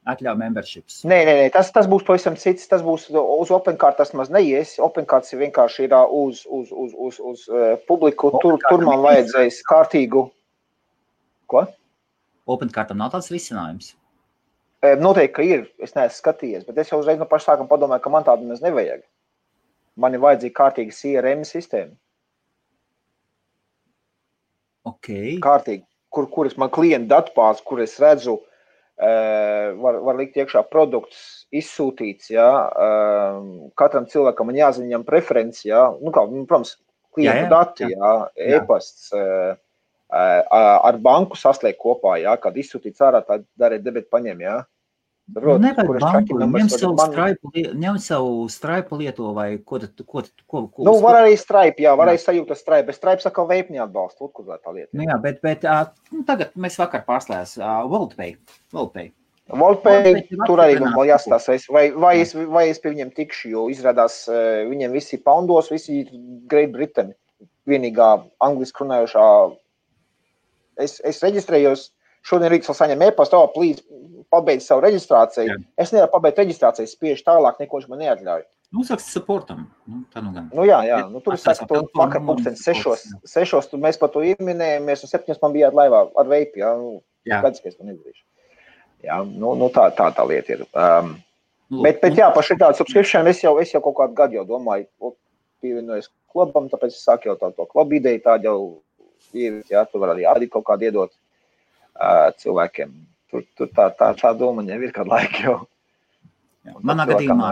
Atļauj memberships. Nē, tas būs pavisam cits, tas būs uz OpenCard, tas maz neies. OpenCards vienkārši ir uz publiku, tur man vajadzēs kārtīgu. Ko? OpenCardam nav tāds risinājums? Noteikti, ka ir, es neesmu skatījies, bet es jau uzreiz no paša sākuma padomāju, ka man tādu maz nevajag. Man ir vajadzīga kārtīga CRM sistēma. Okay. Kārtīgi, kuras man klienta datubāze, kur es redzu, var likt iekšā produkts izsūtīts, katram cilvēkam man jāzina viņam preferenci, protams, klienta dati, e-pasts, ar banku saslēgt kopā, kad izsūtīts ārā, tā darīt debeti paņem, Nevajag banku, ņem savu Stripe lieto vai ko? Var arī Stripe, var arī sajūta Stripe, bet Stripe saka veipni atbalstu, kur tā lieta. Bet tagad mēs vakar pārslējās WorldPay. Tur arī man vēl jāstāstais, vai es pie viņiem tikšu, jo izrādās viņiem visi poundos, visi Great Britain, vienīgā angliski runājošā. Es reģistrējos, šodien rīts vēl saņem e-pastu, plīdz pabeidz savu reģistrāciju. Es nevaru pabeigt reģistrāciju, spiež tālāk, neko viņš man neatļauj. Saka supportam. Tā nu gan. Tur es saku, vakar pulksten 6, tur mēs par to ieminējamies, un 7 man bijāt laivā ar veipi, Gadz, ka es to nedarīšu. Tā lieta ir. Bet par šī tādu subscription es jau kaut kādu gadu jau domāju, pievienojos klubam, tāpēc es sāku jau to klubu ideju, tādu jau tu var arī ādīt kaut kādu iedot cilvēkiem. Tur tā doma jau ir kādu laiku jau. Manā gadījumā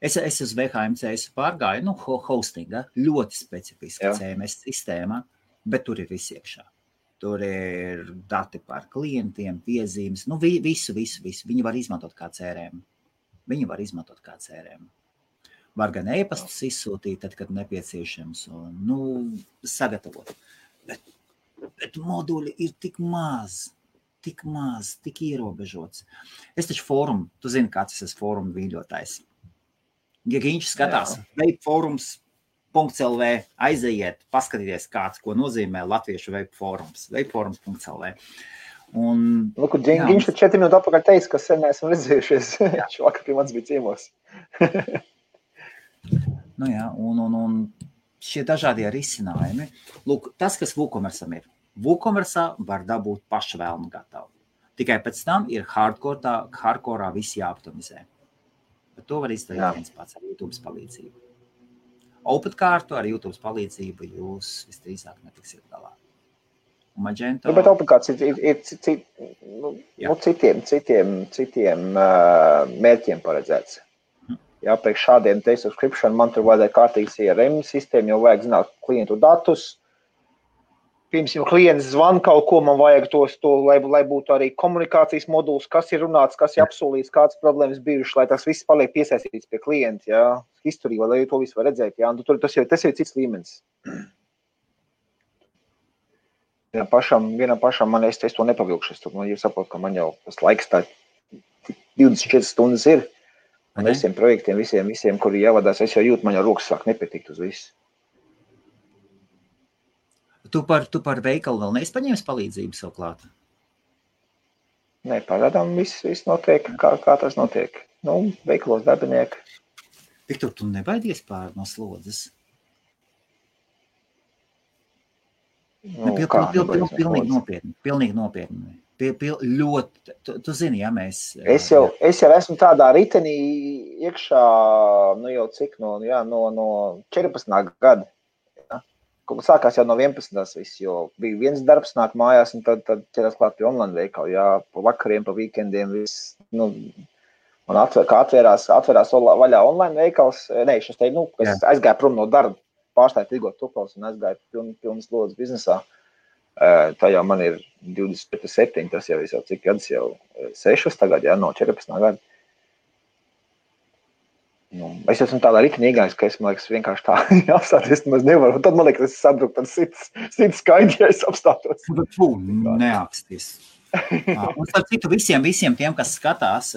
es uz VHMC pārgāju, hostinga, ļoti specifiska CMS sistēma, bet tur ir viss iekšā. Tur ir dati par klientiem, piezīmes, visu. Viņi var izmantot kā CRM. Var gan e-pastus izsūtīt, tad, kad nepieciešams, un, sagatavot. Bet moduļi ir tik maz, tik ierobežots. Es taču fórumu, tu zini, kāds es esmu fórumu vīļotājs. Ja viņš skatās, veipforums.lv, aiziet, paskatīties kāds, ko nozīmē latviešu veipforums, veipforums.lv. Viņš 4 minūtes atpakaļ teica, ka sen neesam redzējušies. Vakar pie mans bija ciemos. Un šie dažādie risinājumi. Lūk, tas, kas WooCommerce'am ir. WooCommerce'ā var dabūt paša vēlmu gatavu. Tikai pēc tam ir hardcore'ā visi jāoptimizē. Bet to var izdarīt viens pats ar YouTube palīdzību. OpenCardu ar YouTube palīdzību jūs visdrīzāk netiksiet galā. Magento... Bet OpenCards ir citiem mērķiem paredzēts. Jā, priekš šādiem te subscription man tur vajadzēja kārtīgi CRM sistēmu, jau vajag zināt klientu datus. Pirms jau klients zvan kaut ko, man vajag to lai būtu arī komunikācijas moduls, kas ir runāts, kas ir apsolīts, kādas problēmas bijušas, lai tas viss paliek piesaistīts pie klienta, jā. Historija, lai to visu var redzēt, jā. Tas jau cits līmenis. Vienam pašam man es to nepavilkšu. Man jau saprotu, ka man jau tas laiks tā 24 stundas ir. Un visiem projektiem, visiem, kuri jāvadās, es jau jūtu, man jau rokas sāk nepietikt uz visu. Tu par veikalu vēl neesi paņēmis palīdzību savu klāt? Nē, pagaidām viss notiek, kā tas notiek. Nu, veikalos darbinieki. Viktor, tu nebaidies pār no slodzes? Nu, Pilnīgi nopietni. Ļoti, tu zini, ja mēs... Es jau esmu tādā ritenī iekšā, nu jau cik, no 14. gada. Sākās jau no 11. viss, jo bija viens darbs nāk mājās, un tad ķerās klāt pie online veikalu, jā, pa vakariem, pa weekendiem, viss, nu, un kā atvērās vaļā online veikals, es aizgāju prom no darba, pārstāju tirgot tupals un aizgāju pilnas lodas biznesā. Tā jau man ir 27, tas jau cik gadus jau 6 tagad, jā, no 14. gada. Nu, es esmu tādā ritini iegājis, ka es, man liekas, vienkārši tā apstāties, nemaz nevaru. Tad, man liekas, es sabruku tad 100 skaidri, ja es apstātos. Neaksties. Un starp citu visiem tiem, kas skatās,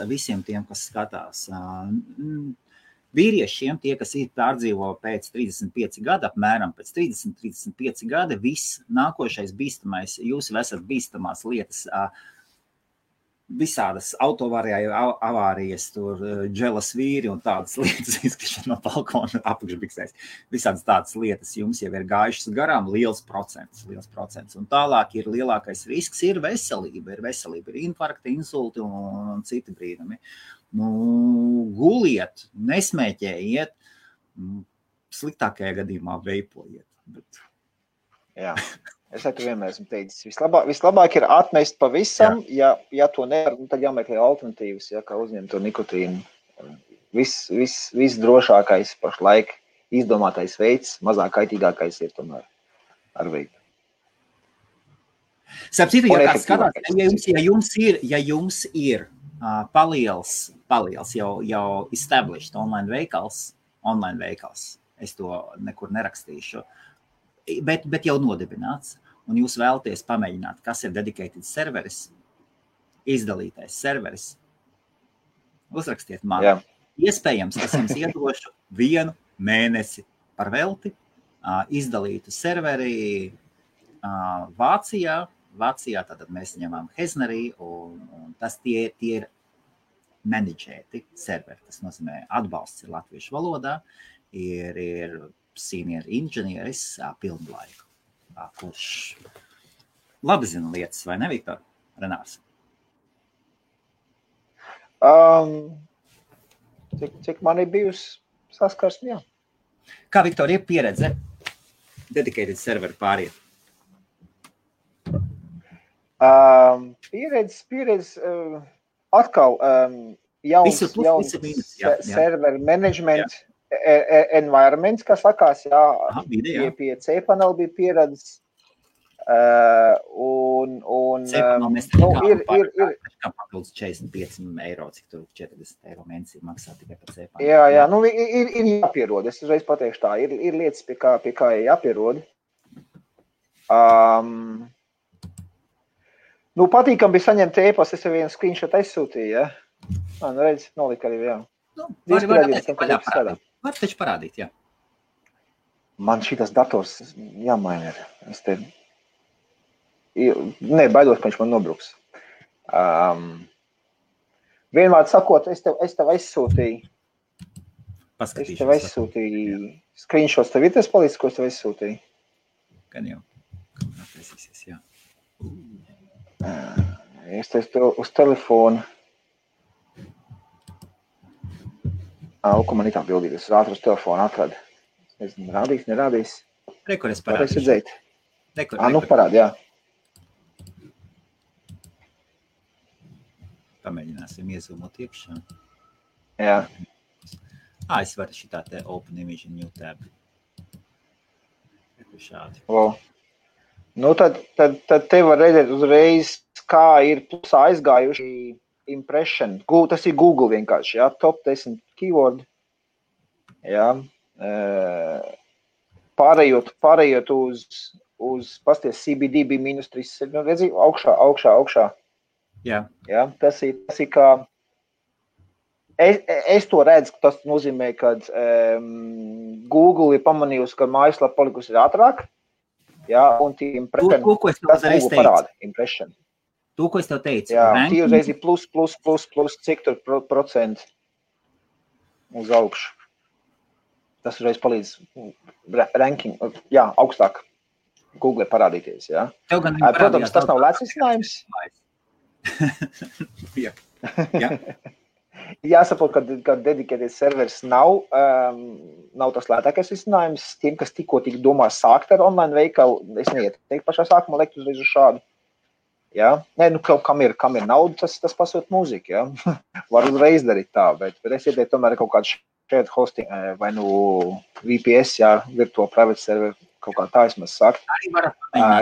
vīriešiem, tie, kas ir pārdzīvo pēc 35 gada, apmēram pēc 30-35 gada, viss nākošais bīstamais, jūs esat bīstamās lietas, visādas avārijas, tur dželas vīri un tādas lietas, izkrišana no balkona apakšbiksēs. Visādas tādas lietas jums jau ir gājušas garām, liels procents. Un tālāk ir lielākais risks, ir veselība, ir infarkti, insulti un citi brīnumi. Nu, guliet, nesmēķējiet, sliktākajā gadījumā veipojiet. Bet... Jā. Es tu vienmēr esmu teicis, vislabāk ir atmest pavisam, ja to nevar, tad jāmeklē alternatīvas, ja, kā uzņemt to nikotīnu. Viss drošākais pašlaik izdomātais veids, mazāk kaitīgākais ir tomēr ar veidu. Sapcītu, ja kāds skatās, ja jums ir paliels jau established online veikals, es to nekur nerakstīšu, bet jau nodibināts, un jūs vēlaties pamēģināt, kas ir dedicated serveris, izdalītais serveris, uzrakstiet man. Jā. Iespējams, es jums iedošu 1 mēnesi par velti, izdalītu serveri Vācijā, tātad mēs ņemam Heznerī, un tas tie ir menedžēti serveri, tas nozīmē atbalsts ir latviešu valodā, ir senior inženieris pilnlaiku, kurš labi zina lietas, vai ne, Viktor? Renārs? Cik man ir bijusi saskarsme, jā. Kā, Viktor, ir pieredze dedicated serveru pāriet? Pieredze atkal jauns serveru management environments, kā sakās, jā, pie cPanel bija pieredzes. cPanel mēs ir papildus 45 eiro, cik tur 40 eiro mēnesī maksā tikai par cPanel. Jā, nu ir jāpierod, es uzreiz pateikšu tā, ir lietas, pie kā jāpierod. Nu, patīkam bija saņemt e-pastu, es jau vienu screenshot aizsūtīju, ja? Nu, redz, nolika arī, jā. Var taču parādīt, jā. Man šitas dators jāmaina ir. Baidos, ka viņš man nobruks. Vienmēr sakot, es tev aizsūtīju. Es tev aizsūtīju screenshots. Tev ir tas palīdz, ko es tev aizsūtīju? Gan jau. Atvēsīsies, jā. Es tev uz telefonu. Ko man ir tā bildīt, es ātri uz telefonu atradu. Es nezinu, nerādīs. Rekur es parādīšu. Redzēt. Nu parādi, jā. Pamēģināsim iezūmot iekšā. Jā. Es varu šitā te Open Image New Tab. Šādi. Wow. Nu, tad te var redzēt uzreiz, kā ir plusā aizgājuši impression. Tas ir Google vienkārši, jā, top 10 keyword. Jā. Pārējot uz pasties CBD bija -3, nu, redzi, augšā. Jā. Jā, tas ir kā, es to redzu, ka tas nozīmē, ka Google ir pamanījusi, ka mājaslapa palikusi ātrāk, jā, un tie impression, to, ko es tev uzreiz teicu. Parāda, impression. To, ko es tev teicu. Jā, tie uzreiz ir plus, cik tur procent uz augšu. Tas uzreiz palīdz ranking, jā, augstāk Google parādīties, jā. Protams, tas nav lēts risinājums. Jā. Jāsaprot, ka dedicated servers nav tas lētākais risinājums. Tiem, kas tikko domā sākt ar online veikalu, es neieteiktu pašā sākumā lekt uzreiz uz šādu. Jā, nē, nu, kam ir nauda, tas pasūt mūziku, jā. Var uzreiz darīt tā, bet es ieteiktu tomēr kaut kādu shared hosting, vai nu VPS, jā, virtual private server, kaut kā tā vismaz sākt.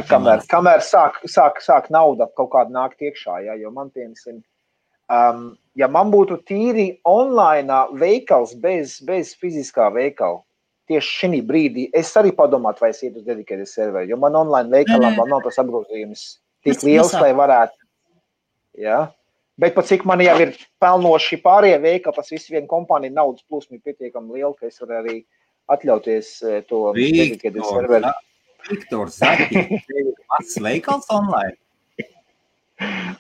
Kamēr sāk nauda kaut kāda nākt iekšā, jā, jo man piemēram, ja man būtu tīri online veikals bez fiziskā veikala, tieši šī brīdī es arī padomātu, vai es iet uz dedicated serveri, jo man online veikalām vēl nav tas apgrozījums tik liels, lai varētu. Jā. Bet pat cik man jau ir pelnoši pārējie veikali, tas viss viena kompānija naudas plūsma ir pietiekami liela, ka es varu arī atļauties to dedicated serveri. Viktors, Zaki, mans veikals online.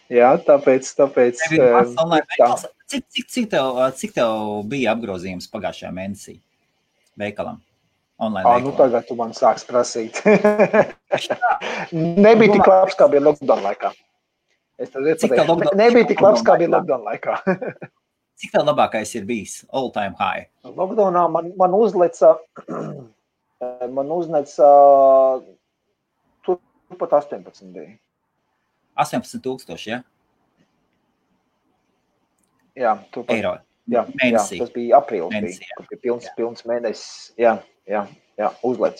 Jā, tāpēc Cik tev bija apgrozījums pagājušajā mēnesī veikalam? Online veikalam? Nu tagad tu man sāks prasīt. Nebija tik labs, kā bija lockdown laikā. Nebija tik labs, kā bija lockdown laikā. Cik tev labākais ir bijis? All time high. Lockdownā man uzleca turpat 18 bija. 18,000, ja? Jā, turpat. Eiro. Jā, tas bija aprīlis, kur bija pilns mēnesis. Jā, uzlec.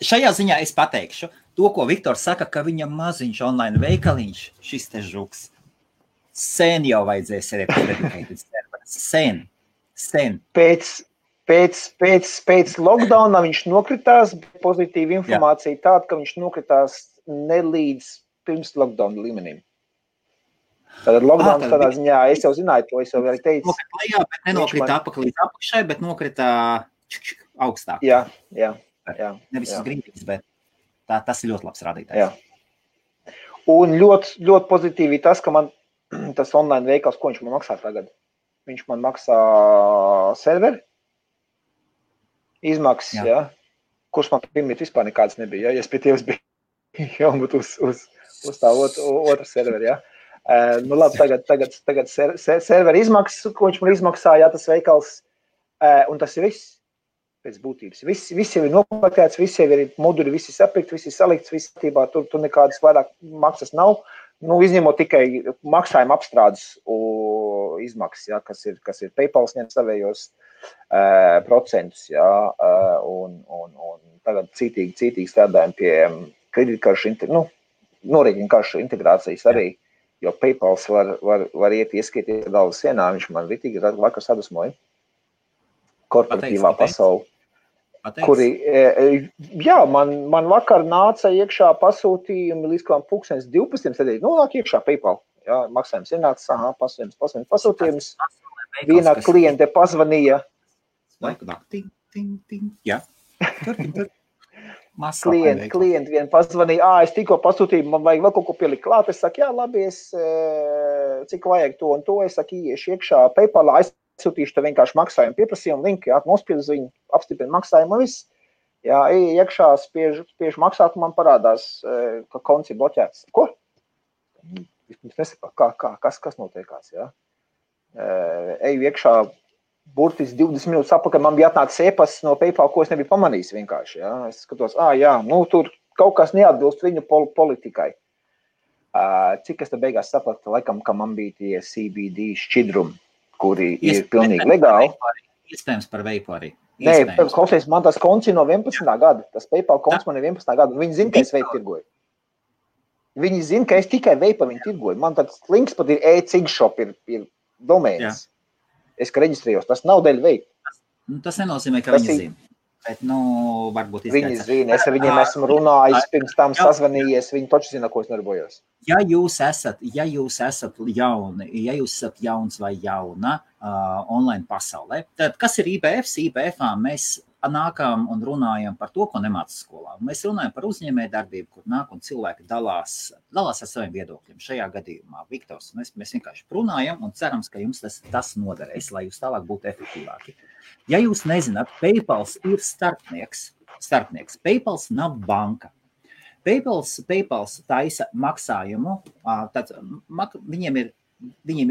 Šajā ziņā es pateikšu, to, ko Viktors saka, ka viņam maziņš online veikaliņš, šis te žuks, sen jau vajadzēs arī dedicated serveris. Sen. Pēc lockdowna viņš nokritās, pozitīva informācija tāda, ka viņš nokritās ne līdz pirms lockdown līmenim. Tātad lockdowns tādā ziņā, es jau zināju to, es jau arī teicu. Nokrita lejā, bet nenokrita līdz apakšai, bet nokrita augstāk. Jā. Nevis uz grīdīs, bet tas ir ļoti labs rādītājs. Jā. Un ļoti pozitīvi tas, ka man tas online veikals, ko viņš man maksā tagad? Viņš man maksā serveri, izmaksas, jā. Kurš man pirmīt vispār nekāds nebija, ja es pie Tievs biju jābūt uz tā otru serveri, jā. Nu labi, tagad serveri izmaksas, ko viņš man izmaksā, jā, tas veikals, un tas ir viss pēc būtības. Viss jau ir nopaktēts, viss jau ir moduļi, viss ir sapirkt, viss ir salikts, viss tībā, tur nekādas vairāk maksas nav. Nu, izņemot tikai maksājuma apstrādes izmaksas, jā, kas ir PayPal ņem savējos procentus, jā, un tagad cītīgi strādājam pie kreditkaršu, norēķinu karšu integrācijas arī, jo PayPals var iet ieskaities galvas sienā, viņš man ritīgi vakar sadusmoja korporatīvā pasauli. Kuri, jā, man vakar nāca iekšā pasūtījumi līdz kādām 12:00 sēdēja, nāk iekšā PayPal, jā, maksājums ienāca, pasūtījums, viena kliente pazvanīja. Jā, klienti vien pazvanīja, es tikko pasūtīju, man vajag vēl kaut ko pielikt klāt, es saku, jā, labi, cik vajag to un to, es saku, iešu iekšā PayPalā, aizsūtīšu te vienkārši maksājumu pieprasījumu linku, jā, nospiedu viņu, apstiprinu maksājumu un viss. Jā, iekšā spiež maksāt, man parādās, ka konts ir bloķēts. Ko? Es nesaku, kas notiekās, jā. Eju iekšā burtiski 20 minūtes apakaļ, man bija atnācis e-pasts no PayPal, ko es nebiju pamanījis vienkārši, jā. Es skatos, jā, nu tur kaut kas neatbilst viņu politikai. Cik es te beigās sapratu, laikam, ka man bija tie CBD šķidrumi, kuri ir pilnīgi legāli. Iespējams par veipu arī. Nē, klausies, man tas konts ir no 11. gada. Tas PayPal konts man ir 11. gada. Viņi zina, ka es veipu tirgoju. Viņi zina, ka es tikai veipa viņu tirgoju. Man tāds links pat ir e-cigshop, ir domēns. Es, ka reģistrējos, tas nav dēļ veipa. Tas nenozīmē, ka viņi zina. Bet, varbūt izteica. Viņi zina, es ar viņiem esmu runājis, pirms tam sazvanījies, viņi taču zina, ko es nodarbojos. Ja jūs esat jauni, ja jūs esat jauns vai jauna online pasaulē, tad kas ir IBFs? IBFā mēs nākam un runājam par to, ko nemāca skolā. Mēs runājam par uzņēmēju darbību, kur nāk un cilvēki dalās ar saviem viedokļiem. Šajā gadījumā Viktors, mēs vienkārši runājam un cerams, ka jums tas noderēs, lai jūs tālāk būtu efektīvāki. Ja jūs nezināt, PayPals ir starpnieks. PayPals nav banka. PayPals taisa maksājumu, tad viņiem ir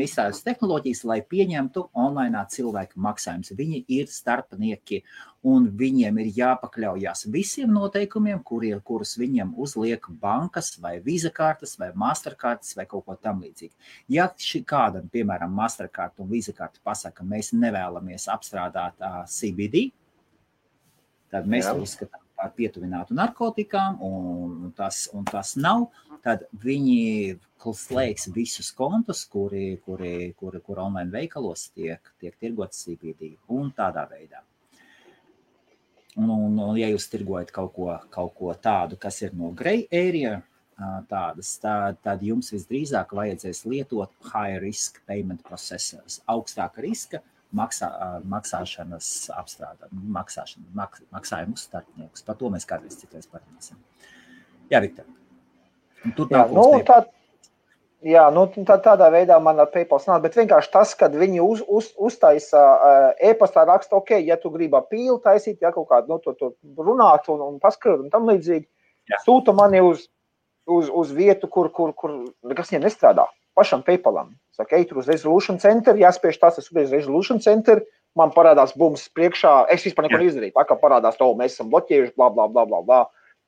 izstrādātas tehnoloģijas, lai pieņemtu online cilvēku maksājumus. Viņi ir starpnieki un viņiem ir jāpakļaujās visiem noteikumiem, kurus viņiem uzliek bankas vai Visa kartes vai Masterkartes vai kaut ko tam līdzīgi. Ja kādam, piemēram, Mastercard un Visa karte pasaka, ka mēs nevēlamies apstrādāt CBD, tad mēs to uzskatām par pietuvinātu narkotikām un tas nav, tad viņi slēgs visus kontus, kuri online veikalos tiek tirgots CBD un tādā veidā. Un ja jūs tirgojat kaut ko tādu, kas ir no grey area, tad jums visdrīzāk vajadzēs lietot high risk payment processors, augstāka riska maksāšanas maksājumu starpniekus. Par to mēs kādreiz citreiz parunāsim. Jā, Viktor. Tādā veidā man ar PayPal nāk, bet vienkārši tas, kad viņi uztaisa e-pastā raksta, ok, ja tu gribi pīli taisīt, ja kaut kādu to runāt un paskrūt un tam līdzīgi, sūta mani uz vietu, kur nekas viņiem nestrādā. Pašam PayPalam. Saka, ej tur uz Resolution Center, jāspiež tas, es uz Resolution Center, man parādās bums priekšā, es vispār neko neizdarīju, tā kā parādās to, mēs esam bloķējuši, bla.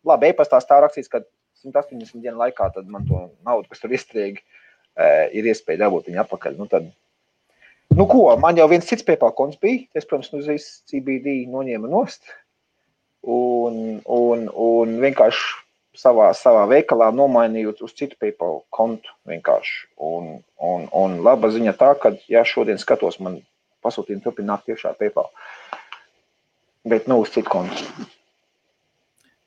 Labi, e-pastās tā rakstīts, ka 180 dienu laikā tad man to naudu, kas tur iestrēgi, ir iespēja dabūt viņu atpakaļ. Man jau viens cits PayPal konts bija, es, protams, uzreiz CBD noņēma nost un vienkārši savā veikalā nomainījot uz citu PayPal kontu vienkārši. Un laba ziņa tā, ka, ja šodien skatos, man pasūtījumi turpināt tiešā PayPal. Bet, uz citu kontu.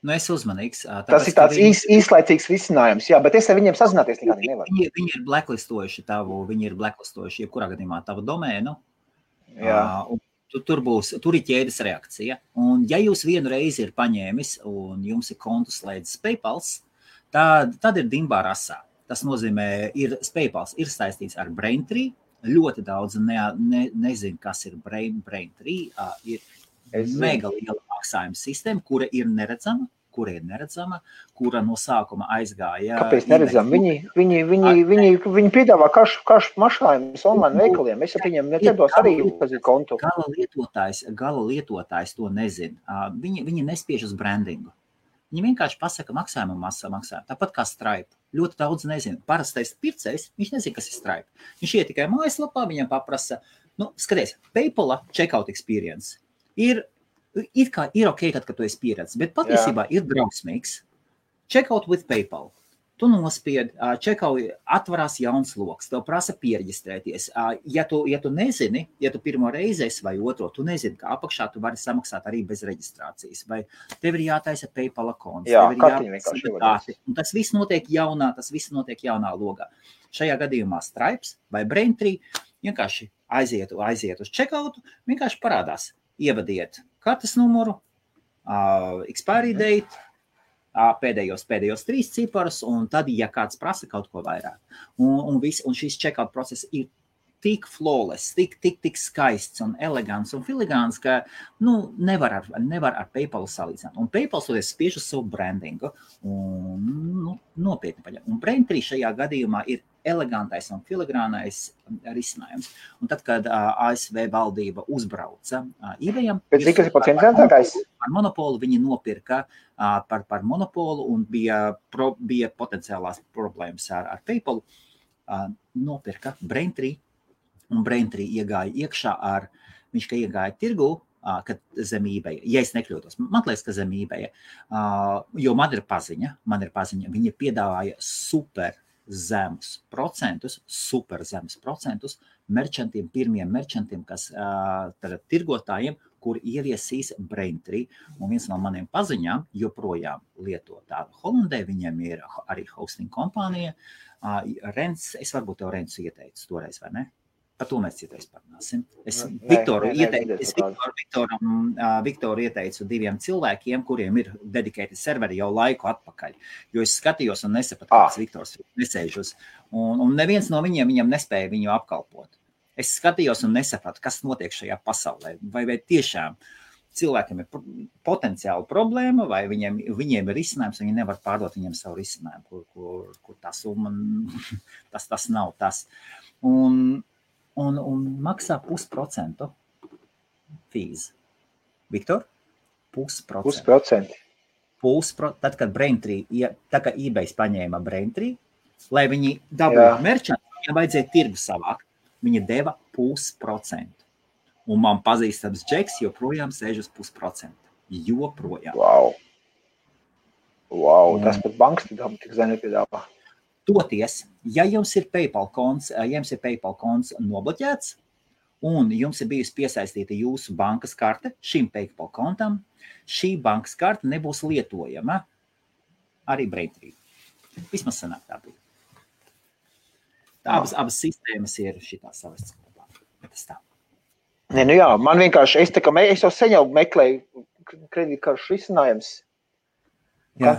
Es uzmanīgs. Tas ir tāds īslaicīgs risinājums, jā, bet es ar viņiem sazināties nekādi nevaru. Viņi ir blacklistojuši jebkurā gadījumā tavu domēnu. Jā. Tur ir ķēdes reakcija. Un ja jūs vienu reizi ir paņēmis un jums ir kontu slēdzis PayPals, tad ir dimbā rasā. Tas nozīmē, PayPals ir saistīts ar Braintree. Ļoti daudz nezinu, kas ir Braintree. Ir mega liela maksājuma sistēma, kura ir neredzama, kura no sākuma aizgāja. Kāpēc neredzam? Viņi piedāvā kašu mašājumus online veikaliem. Es ar viņiem neciedos arī uzpazīt kontu. Gala lietotājs to nezina. Viņi nespiež uz brandingu. Viņi vienkārši pasaka maksājumu. Tāpat kā Stripe. Ļoti daudz nezina. Parastais pircējs, viņš nezina, kas ir Stripe. Viņš iet tikai mājaslapā, viņam paprasa, skaties, PayPal checkout experience ir ok, kad tu esi pieredzis, bet patiesībā ir drausmīgs. Checkout with PayPal. Tu nospied, atvarās jauns loks, tev prasa pieregistrēties. Ja tu nezini, ja tu pirmo reizi esi vai otro, tu nezini, ka apakšā tu vari samaksāt arī bez reģistrācijas. Vai tev ir jātaisa PayPal konts, tev ir jātaisa dati. Un tas viss notiek jaunā logā. Šajā gadījumā Stripes vai Braintree vienkārši aiziet uz checkoutu, vienkārši parādās. Ievadiet kartes numuru, expiry date, pēdējos 3 ciparus, un tad, ja kāds prasa kaut ko vairāk. Un šis checkout process ir tik flawless, tik skaists un elegants un filigāns, ka nevar ar PayPal salīdzināt. Un PayPal spiež uz savu brandingu un nopietni paņem. Un Braintree šajā gadījumā ir elegantais un filigrānais risinājums. Un tad, kad ASV valdība uzbrauca eBayam, bet cik tas ir pats interesantākais? Par monopolu viņi nopirka par monopolu un bija potenciālās problēmas ar PayPal. Nopirka Braintree, un Braintree iegāja iekšā viņš iegāja tirgu, kad zem eBay, ja es nekļūtos, man liekas, ka zem eBay, jo man ir paziņa, viņi piedāvāja super zemus procentus merchantiem, pirmiem merchantiem, kas tirgotājiem, kur ieviesīs Braintree, un viens no maniem paziņām joprojām lieto tādu Holandē, viņiem ir arī hosting kompānija, Rents, es varbūt tev Rensu ieteicu toreiz, vai ne? Par to mēs citreiz parunāsim. Es Viktoru ieteicu 2 cilvēkiem, kuriem ir dedicated serveri jau laiku atpakaļ, jo es skatījos un nesapratu, kāds Viktors nesēžus, un neviens no viņiem nespēja viņu apkalpot. Es skatījos un nesapratu, kas notiek šajā pasaulē, vai tiešām cilvēkiem ir potenciāla problēma, vai viņiem ir risinājums, viņi nevar pārdot viņiem savu risinājumu, kur tā summa, tas nav tas. Un maksā 0,5% fees. Viktor? 0,5%. Tad, kad Braintree, tā kā eBay paņēma Braintree, lai viņi dabūtu merčantu, viņam vajadzēja tirgu savākt. Viņa deva 0,5%. Un man pazīstams Džeks joprojām sēž uz 0,5%. Joprojām. Wow, tas pat bankas tik zem nepiedāvā. Toties, ja jums ir PayPal konts nobloķēts, un jums ir bijusi piesaistīta jūsu bankas karte šim PayPal kontam, šī bankas karte nebūs lietojama arī Braintree. Vismaz sanāk tā bija. Abas sistēmas ir šitās savas kopā. Tas tā. Nē, nu jā, man vienkārši, es jau sen jau meklēju kredītkaršu risinājums. Jā,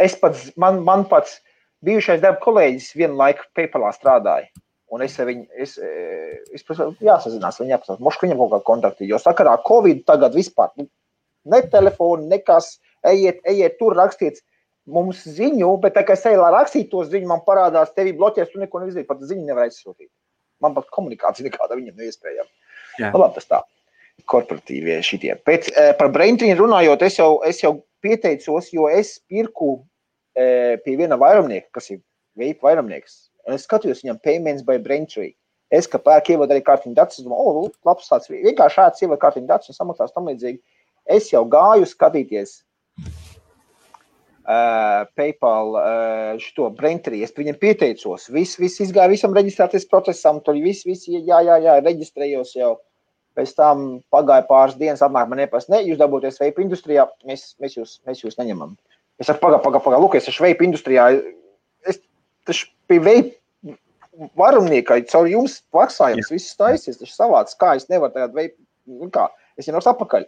es pats, man pats bijušais darba kolēģis vienu laiku PayPalā strādāja. Un es jāsazinās, viņi jāpasās, mošku viņam kaut kā kontakti, jo sakarā Covid tagad vispār, ne telefoni, nekas, ejiet tur rakstiet mums ziņu, bet tā kā es eju, lai rakstītu to ziņu, man parādās, tevi bloķēs, tu neko neizdarīt, pat ziņu nevar aizsūtīt. Man pat komunikācija nekāda viņam neiespējama. Labi, tas tā, korporatīvie šitie. Pēc, par Braintree runājot, es jau pieteicos, jo es pirku pie viena vairumnieka, kas ir vape vairumnieks. Un es skatījos viņam payments by Braintree. Es, ka pērk ievadu arī kārtiņu datus, es domāju, labs tāds, vienkārši šāds ievadu kārtiņu datus un samaksās tam līdzīgi. Es jau gāju skatīties PayPal šito Braintree, es viņam pieteicos, viss izgāja, visam reģistrēties procesam, tur viss, jā, reģistrējos jau, pēc tam pagāja pāris dienas, apmēr man nepas, jūs dabūties vape industrijā, mēs jūs neņemam. Es saku, pagā, lūk, es esmu vape industrijā, tas pie vape varumniekai, caur jums maksājums, viss taisies, tas savāds, kā es nevaru tagad vape, kā, es jau atpakaļ.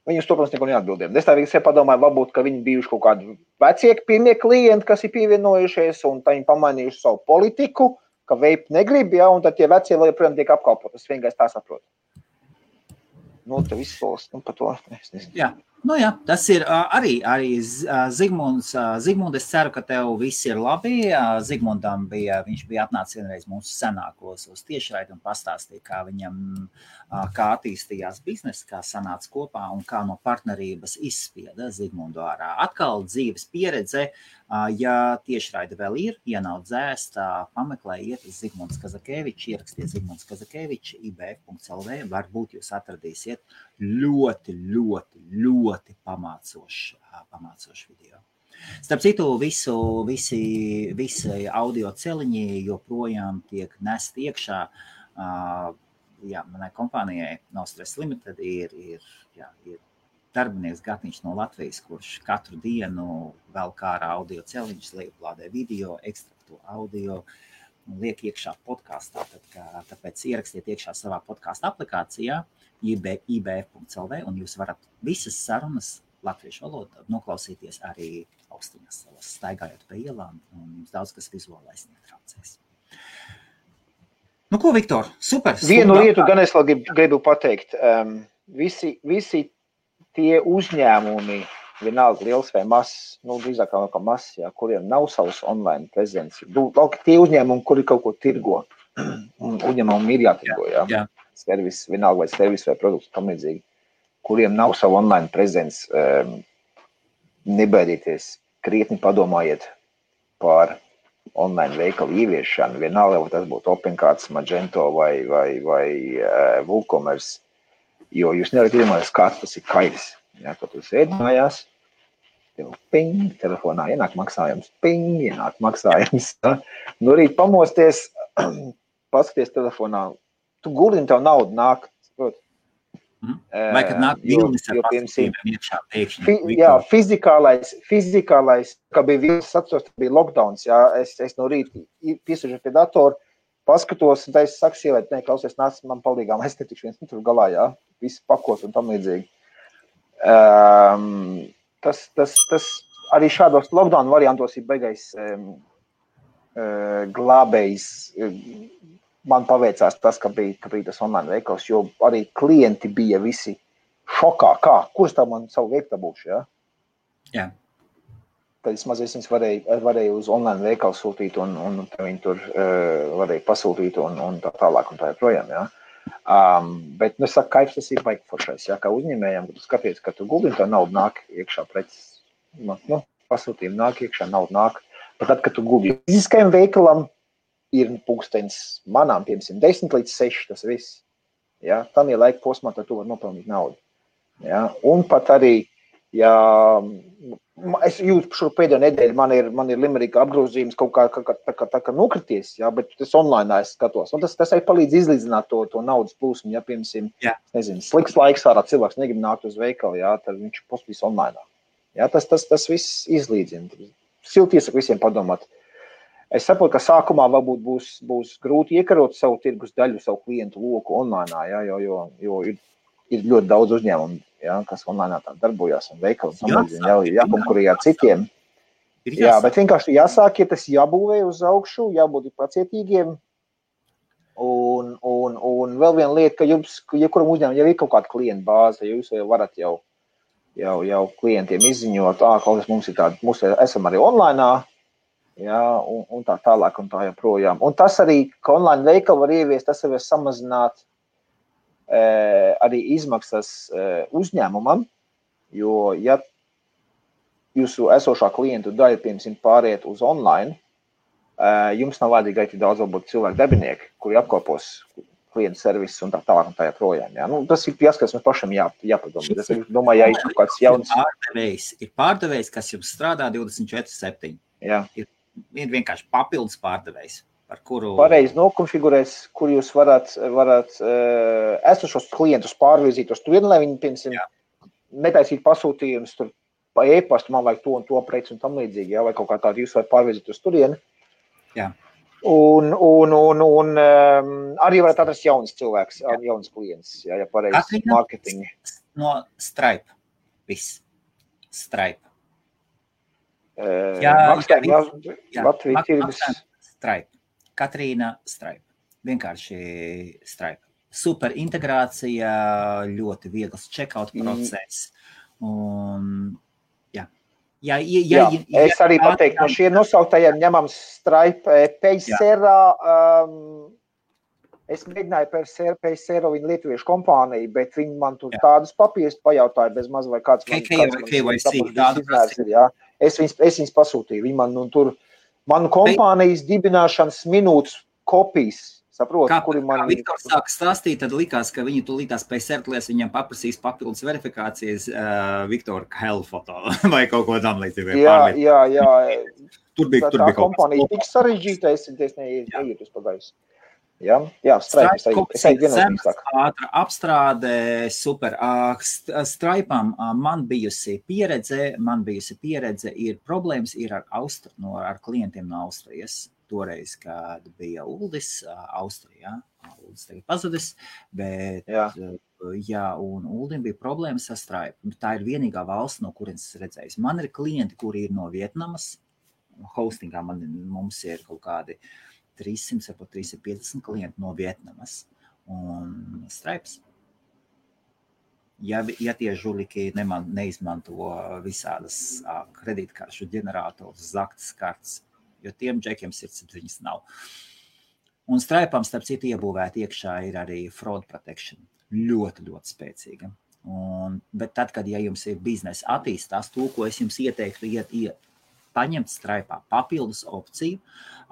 Viņi uz to, protams, neko neatbildēja. Es tā vienkārši padomāju, varbūt, ka viņi bijuši kaut kādi vecie pirmie klienti, kas ir pievienojušies, un viņi pamainījuši savu politiku, ka vape negrib, ja, un tad tie vecie vēl joprojām tiek apkalpot. Es vienkārši tā saprotu. Nu, te viss solis, par to. Es nezinu. Jā, tas ir arī Zigmunds. Zigmund, es ceru, ka tev viss ir labi. Zigmundam viņš bija atnācis vienreiz mūsu senākos uz tiešraidi un pastāstīja, kā viņam, kā attīstījās biznesa, kā sanāca kopā un kā no partnerības izspieda Zigmundu ārā. Atkal dzīves pieredze, ja tiešraidi vēl ir, ja nav dzēst, pameklējiet Zigmunds Kazakevičs, ierakstiet Zigmunds Kazakevičs, ibf.lv, varbūt jūs atradīsiet ļoti pamācošu video. Starp citu, visi audio celiņi joprojām tiek nest iekšā. Manai kompānijai No Stress Limited ir darbinieks Gatniņš no Latvijas, kurš katru dienu vēl kā ar audio celiņus lieplādē video, ekstrakto audio, liek iekšā podkastā. Tāpēc ierakstiet iekšā savā podkasta aplikācijā ibf.lv un jūs varat visas sarunas latviešu valodā noklausīties arī austiņas savas, staigājot pa ielām, un jums daudz kas vizuālais netraucēs. Nu ko, Viktor, super! Vienu lietu gan es vēl gribu pateikt. Visi tie uzņēmumi, vienalga liels vai mazs, drīzāk kā mazs, kuriem nav savs online prezenci. Tie uzņēmumi, kuri kaut ko tirgo, uzņēmumi ir jātirgo, servis, vienalga vai servis vai produkts tam līdzīgi, kuriem nav savu online prezenci, nebaidieties, krietni padomājiet par online veikalu ieviešanu, vienalga, vai tas būtu OpenCards, Magento vai WooCommerce, jo jūs nevarat iedomāties, kāds tas ir kairis. Kad tu sēdi mājās, tev ping, telefonā ienāk maksājums, ping, ienāk maksājums. No rīt pamosties, paskaties telefonā, tu gulini, tev naudu nāk, Vai kad nāk vilnis ar pasakījumiem iekšā pēkšņi? Jā, fizikālais, kā bija vilnis atceros, bija lockdowns, es no rīta piesažu pie datoru, paskatos, un es saku sievēt, klausies, nāc man palīgā, es netikšu viens tur galā, visi pakos un tam līdzīgi. Tas arī šādos lockdown variantos ir beigais glābējs. Man paveicās tas, ka bija tas online veikals, jo arī klienti bija visi šokā. Kurš tā man savu veiktā būšu, Jā. Tad es mazliet varēju uz online veikalu sūtīt un viņi tur varēja pasūtīt un tā tālāk un tā joprojām, Bet, es saku, kaifs tas ir baigi foršais, kā uzņēmējiem, kad tu skaties, ka tu guldini, tā nauda nāk iekšā preces, pasūtījumi nāk iekšā, nauda nāk, bet tad, kad tu guldini fiziskajam veikalam, ir pulkstenis manām, piemēram, 10 līdz 6, tas viss. Tam ir laika posmā, tad tu vari nopelnīt naudu. Un pat arī, es jūtu šo pēdējo nedēļu, man ir Limerika apgrozījums kaut kā nokrities, bet tas online es skatos. Un tas arī palīdz izlīdzināt to naudas plūsmu, piemēram, nezinu, slikts laiks ārā, cilvēks negrib nākt uz veikalu, tad viņš postīs online. Tas viss izlīdzina. Silti iesaku visiem padomāt. Es saprotu, ka sākumā varbūt būs grūti iekarot savu tirgus daļu, savu klientu loku online, jo ir ļoti daudz uzņēmumu, kas online tā darbojās un veikali jākonkurē ar citiem. Bet vienkārši jāsāk, ja tas jābūvē uz augšu, jābūt pacietīgiem. Un vēl viena lieta, ka jums, jebkuram uzņēmumam jau ir kaut kāda klienta bāze, ja jūs jau varat jau klientiem izziņot, mums ir tāda, mums esam arī online, un tā tālāk un tā joprojām. Un tas arī, ka online veikalu var ieviest, tas var samazināt arī izmaksas uzņēmumam, jo, ja jūsu esošā klientu daļa, piemēram, pāriet uz online, jums nav vajadzīgi arī daudz varbūt cilvēku darbinieki, kuri apkopos klientu servisus un tā tālāk un tā joprojām. Tas ir jāskatās, mums pašam jāpadomā. Es domāju, ja ir kaut kāds jauns... Ir pārdevējs, kas jums strādā 24/7. Ir vienkārši papildus pārdevējs, par kuru... Pareizi nokonfigurēs, kur jūs varat esošos klientus pārvirzīt uz turieni, lai viņi, piemēram, netaisīt pasūtījumus tur pa e-pastu, man vajag to un to preci un tam līdzīgi, vai kaut kā tādu jūs varat pārvirzīt uz turieni. Un arī varat atrast jauns cilvēks, jauns klients, ja pareizi marketingi. No Stripe, viss. Stripe. Latvijas tirgus. Stripe. Katrīna Stripe. Vienkārši Stripe. Super integrācija, ļoti viegls checkout process. Un, es arī pateiktu, no šiem nosauktajiem ņemam Stripe, Paysera, es mēģināju Paysera viņa lietuviešu kompāniju, bet viņi man tur tādus papīrus pajautāja bez maz vai kāds Es viņus pasūtīju. Viņi man tur, manu kompānijas dibināšanas minūtes kopijas, saprotu, kuri man... Kā Viktors sāka stāstīt, tad likās, ka viņi tulītās Paysertlēs viņam paprasīs papildus verifikācijas Viktora Hell foto vai kaut ko tam līdzīgi. Tur bija tā kompānija tik sarežģīta, es neiet uz pagājus. Stripe, es ātra apstrāde, super. Stripe'am man bijusi pieredze, ir problēmas ar klientiem no Austrijas. Toreiz, kad bija Uldis, Austrijā, Uldis tagad pazudis, bet un Uldim bija problēmas ar Stripe. Tā ir vienīgā valsts, no kurienes es redzēju. Man ir klienti, kuri ir no Vietnamas, hostingā mums ir kaut kādi 300, varbūt 350 klienti no Vietnamas un Stripes. ja tie žuliki neizmanto visādas kredītkaršu ģenerators, zaktas kartes, jo tiem džekiem sirdsapziņas nav. Un Stripe'am, starp citu, iebūvēt iekšā ir arī fraud protection. Ļoti, ļoti spēcīga. Bet tad, kad ja jums ir biznesa attīstās, to, ko es jums ieteiktu, paņemt Stripe'ā papildus opciju,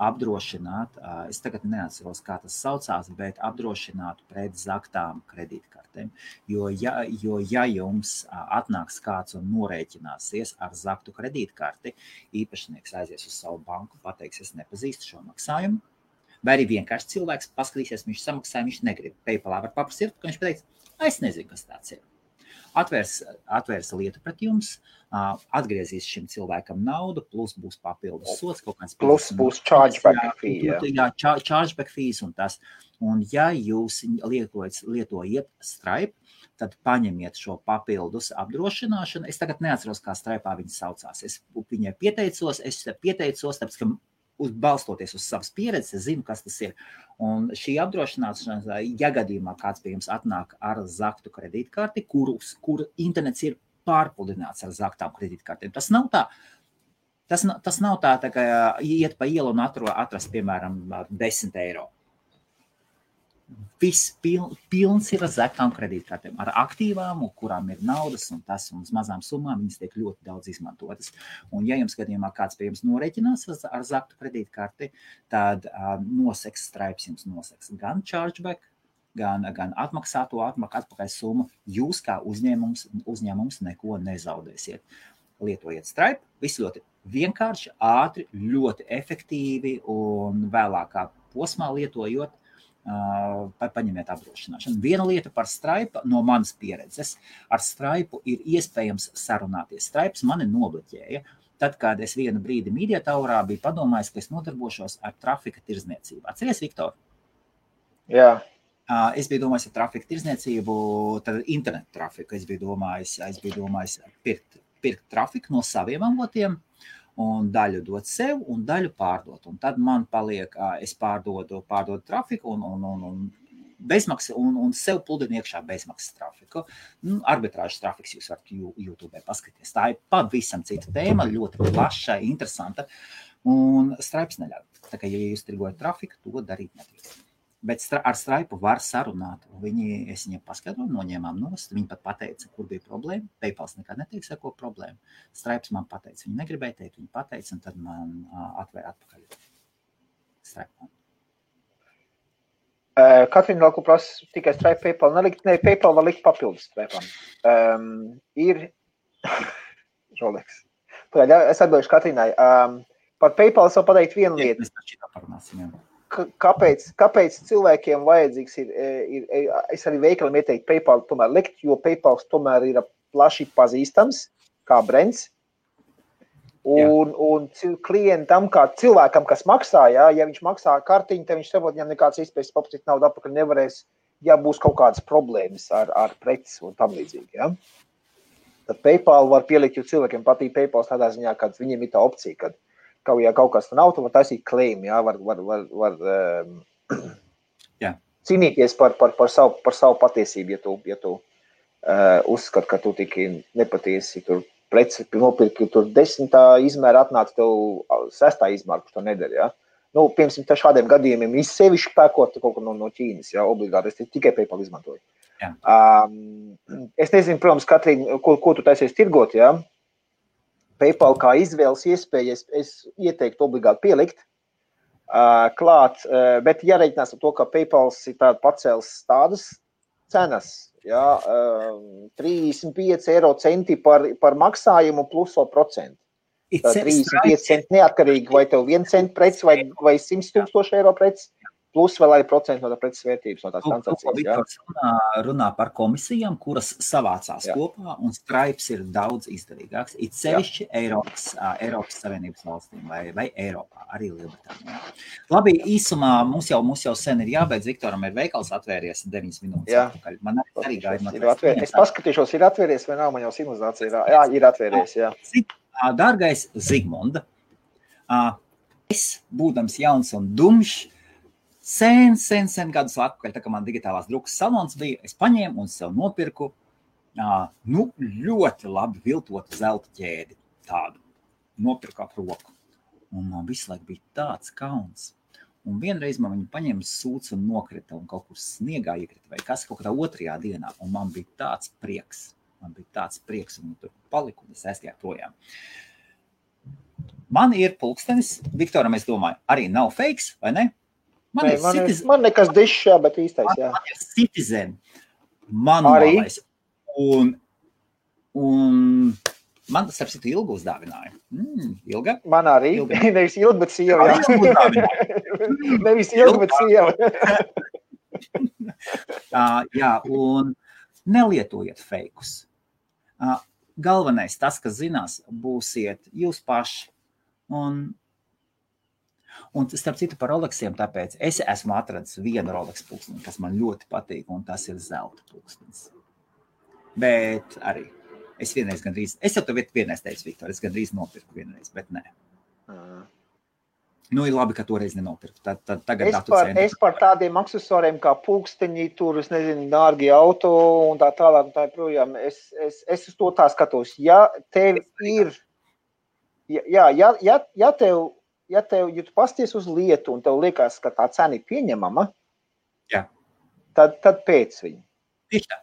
apdrošināt, es tagad neatceros, kā tas saucās, bet apdrošināt pret zaktām kredītkartēm. Jo ja jums atnāks kāds un norēķināsies ar zaktu kredītkarti, īpašnieks aizies uz savu banku, pateiks, es nepazīstu šo maksājumu, vai arī vienkārši cilvēks paskatīsies, viņš samaksāja, viņš negrib. PayPalā var paprasīt, ka viņš pateiks, es nezinu, kas tāds ir. Atvērs lietu pret jums, atgriezīs šim cilvēkam naudu, plus būs papildus sots, kaut kāds plus būs chargeback fee. Jā, chargeback fees un tas. Un ja jūs lietojat Stripe, tad paņemiet šo papildus apdrošināšanu. Es tagad neatceros, kā Stripe'ā viņa saucās. Es viņai pieteicos, tāpēc, ka balstoties uz savas pieredzes, es zinu, kas tas ir. Un šī apdrošināšana, ja gadījumā kāds pie jums atnāk ar zaktu kredītkarti, kur internets ir pārpludināts ar zaktām kredītkartēm, tas nav tā, ka iet pa ielu un atrast, piemēram, 10 eiro. Viss pilns ir ar zaktām kredītkartēm, ar aktīvām, kurām ir naudas un tas, un uz mazām summām viņas tiek ļoti daudz izmantotas. Un ja jums gadījumā kāds pie jums norēķinās ar zaktu kredītkarti, tad Stripe jums noseks gan chargeback, gan atmaksāto atpakaļ summu. Jūs kā uzņēmums neko nezaudēsiet. Lietojiet Stripe, viss ļoti vienkārši, ātri, ļoti efektīvi un vēlākā posmā lietojot, paņemiet apdrošināšanu. Viena lieta par Stripe no manas pieredzes. Ar Stripe ir iespējams sarunāties. Stripes mani nobloķēja. Tad, kad es vienu brīdi Media Towerā biju padomājis, ka es nodarbošos ar trafika tirdzniecību. Atceries, Viktor? Jā. Es biju domājis ar trafika tirdzniecību, tad internetu trafiku. Es biju domājis pirkt trafiku no saviem avotiem, un daļu dot sev, un daļu pārdot. Un tad man paliek, es pārdodu trafiku un bezmaksas, un sev pludinu iekšā bezmaksas trafiku. Arbitrāžas trafiks jūs varat YouTube paskatīties. Tā ir pavisam cita tēma, ļoti plaša, interesanta, un Stripes neļauj. Tā kā, ja jūs tirgojat trafiku, to darīt nedrīkst. Bet ar Stripe var sarunāt. Es viņiem paskaidroju, noņēmām nost. Viņi pat pateica, kur bija problēma. PayPal nekad neteiks, ar ko problēma. Stripes man pateica, viņi negribēja teikt, viņi pateica, un tad man atvēra atpakaļ Stripe. Katrīna vēl ko prasa tikai Stripe PayPal nelikt. Ne, PayPal var likt papildus Stripe'am. Ir Rolex. Es atbilduši Katrīnai. Par PayPal es vēl pateikt vienu lietu. Mēs taču tā parunāsim, jā. Kāpēc cilvēkiem vajadzīgs ir, es arī veikalam ieteiktu PayPal tomēr likt, jo PayPal tomēr ir plaši pazīstams kā brands. Un klientam, kā cilvēkam, kas maksā, ja viņš maksā kartiņu, tad viņš saprot, viņam nekāds iespējas paprasīt naudu atpakaļ nevarēs, ja būs kaut kādas problēmas ar preces un tam līdzīgi. Ja? Tad PayPal var pielikt, jo cilvēkiem patīk PayPal tādā ziņā, kad viņiem ir tā opcija, kad ja kaut kas nav, tad var taisīt claim, jā, var cīnīties par savu patiesību, ja tu uzskat, ka tu tiki nepatiesi, tur preci nopirki, tur 10. izmēra atnāca tev 6. izmēra, kurš to nedara, jā. Piemēram, šādiem gadījumiem sevišķi pērkot kaut ko no Ķīnas, jā, obligāti, es tikai PayPal izmantoju. Es nezinu, protams, Katrīna, ko tu taisies tirgot, jā. PayPal kā izvēles iespēja, es ieteiktu obligāti pielikt klāt, bet jāreikinās ar to, ka PayPal ir pacēlis tādas cenas, jā, 35 eiro centi par maksājumu plus vēl procentu. 35 centi neatkarīgi, vai tev 1 cent preci vai 100 000 eiro preci, plus vēl arī procentu no tā preces vērtības, no tās transakcijas. Runā par komisijām, kuras savācās kopā, un Stripes ir daudz izdevīgāks. It sevišķi Eiropas Savienības valstīm vai Eiropā, arī Lielbritānijā. Labi, īsumā mums jau sen ir jābeidz. Viktoram ir veikals atvērties 9 minūtes atpakaļ. Man arī gaida. Es paskatīšos, ir atvērties vai nav, man jau simulācija ir. Jā, ir atvērties, jā. Dārgais Zigmunda, es, būdams jauns un dumšs, sen gadus atpakaļ, tā kā man digitālās drukas salons bija, es paņēmu un sev nopirku Ļoti labi viltotu zelta ķēdi tādu. Nopirku ap roku. Un man visu laiku bija tāds kauns. Un vienreiz man viņu paņēma sūds un nokrita un kaut kur sniegā iekrita vai kas kaut kādā otrajā dienā. Un man bija tāds prieks. Un viņi tur palika un es aizgāju projām. Man ir pulkstenis, Viktoram, es domāju, arī nav fakes, vai ne? Man nekas dišs, jā, bet īstais, jā. Man ir Citizen manuālais. Un man tas ar citu Ilgu uzdāvināja. Ilga? Man arī. Nevis Ilga, bet sieva, jā. Nevis Ilga, bet sieva. Jā, un nelietojiet fejkus. Galvenais, tas, kas zinās, būsiet jūs paši. Un starp citu par Rolexiem, tāpēc es esmu atradis vienu Rolex pulksteni, kas man ļoti patīk, un tas ir zelta pulkstenis. Bet arī es jau tev vienreiz teicu, Viktor, es gandrīz nopirku vienreiz, bet nē. Ir labi, ka toreiz nenopirku. Es par tādiem aksesuāriem kā pulksteņi, tur, es nezinu, dārgi auto un tā tālāk un tā projām. Es uz to tā skatos. Ja tev ir, ja tu pasties uz lietu un tev liekas, ka tā cena ir pieņemama, tad pēc viņu. Tieši tā.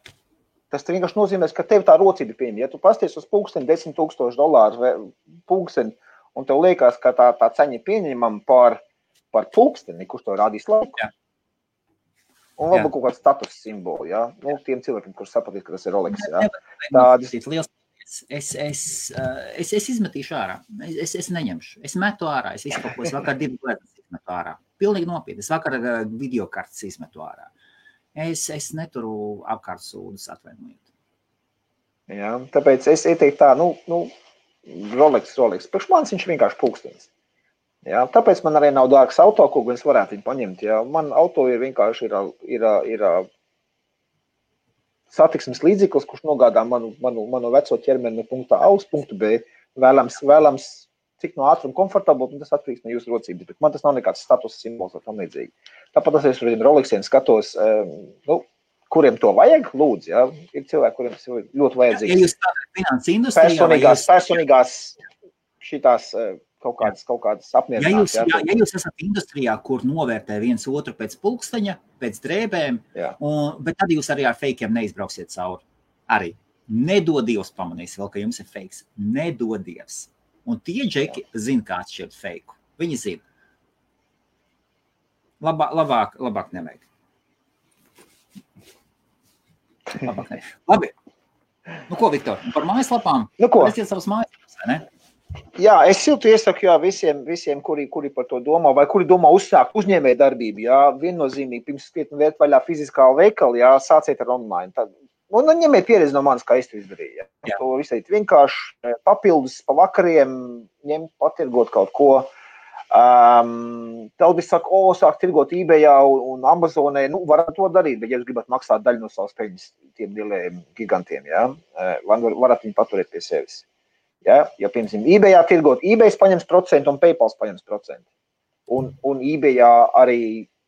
Tas vienkārši nozīmēs, ka tev tā rocība pieņem. Ja tu pasties uz pulksteni $10,000 pulksteni, un tev liekas, ka tā ceņa ir pieņemama par pulksteni, kurš to rādīs laiku. Jā. Un varbūt kaut kāds status simboli, jā. Tiem cilvēkiem, kurš sapratīs, ka tas ir Rolex, jā. Es izmetīšu ārā. Es neņemšu. Es metu ārā. Es visu kaut ko, es vakar 2 lietas izmetu ārā. Pilnīgi nopietni. Es vakar videokartes izmetu ārā. Es neturu apkārt sūdus, atvainojiet. Jā, tāpēc es ieteiktu tā, Rolex. Priekš manis viņš vienkārši pulkstenis. Jā, tāpēc man arī nav dārgs auto, ko es varētu viņu paņemt. Jā. Man auto ir vienkārši ir satiksmes līdzeklis, kurš nogādā manu veco ķermeni no punkta A uz punktu B. Vēlams cik no ātruma komfortabli, un tas atkarīgs no jūsu rocības. Bet man tas nav nekāds status simbols vai tam līdzīgi. Tāpat es uz Rolexiem skatos, kuriem to vajag, lūdzu, jā. Ir cilvēki, kuriem tas ir ļoti vajadzīgs. Ja jūs tādā finanses industrijā... Personīgās šitās kaut kādas apmierināts. Ja jūs esat industrijā, kur novērtē viens otru pēc pulksteņa, pēc drēbēm, bet tad jūs arī ar fejkiem neizbrauksiet cauri. Arī. Nedodievs pamanīs vēl, ka jums ir fejks. Nedodievs. Un tie džeki zina, kā atšķirt fejku. Viņi zina. Labāk nevajag. Labi. Ko, Viktor, par mājaslapām? Resiet savas mājaslapas, vai ne? Jā, es siltu iesaku visiem, kuri par to domā, vai kuri domā uzsākt uzņēmēju darbību. Jā, viennozīmīgi, pirms skrietni vērt vaļā fiziskā veikali, jā, sāciet ar online. Un ņemiet pieredzi no manis, kā es to izdarīju. Jā. To visai vienkārši papildus pa vakariem ņemt, patirgot kaut ko. Daudz saka, sāk tirgot eBayā un Amazonē, varat to darīt, bet ja jūs gribat maksāt daļu no savas peļņas tiem lielajiem gigantiem, jā, varat viņu paturēt pie sevis. Ja, piemēram, eBayā tirgot, eBays paņems procentu un PayPals paņems procentu. Un eBayā arī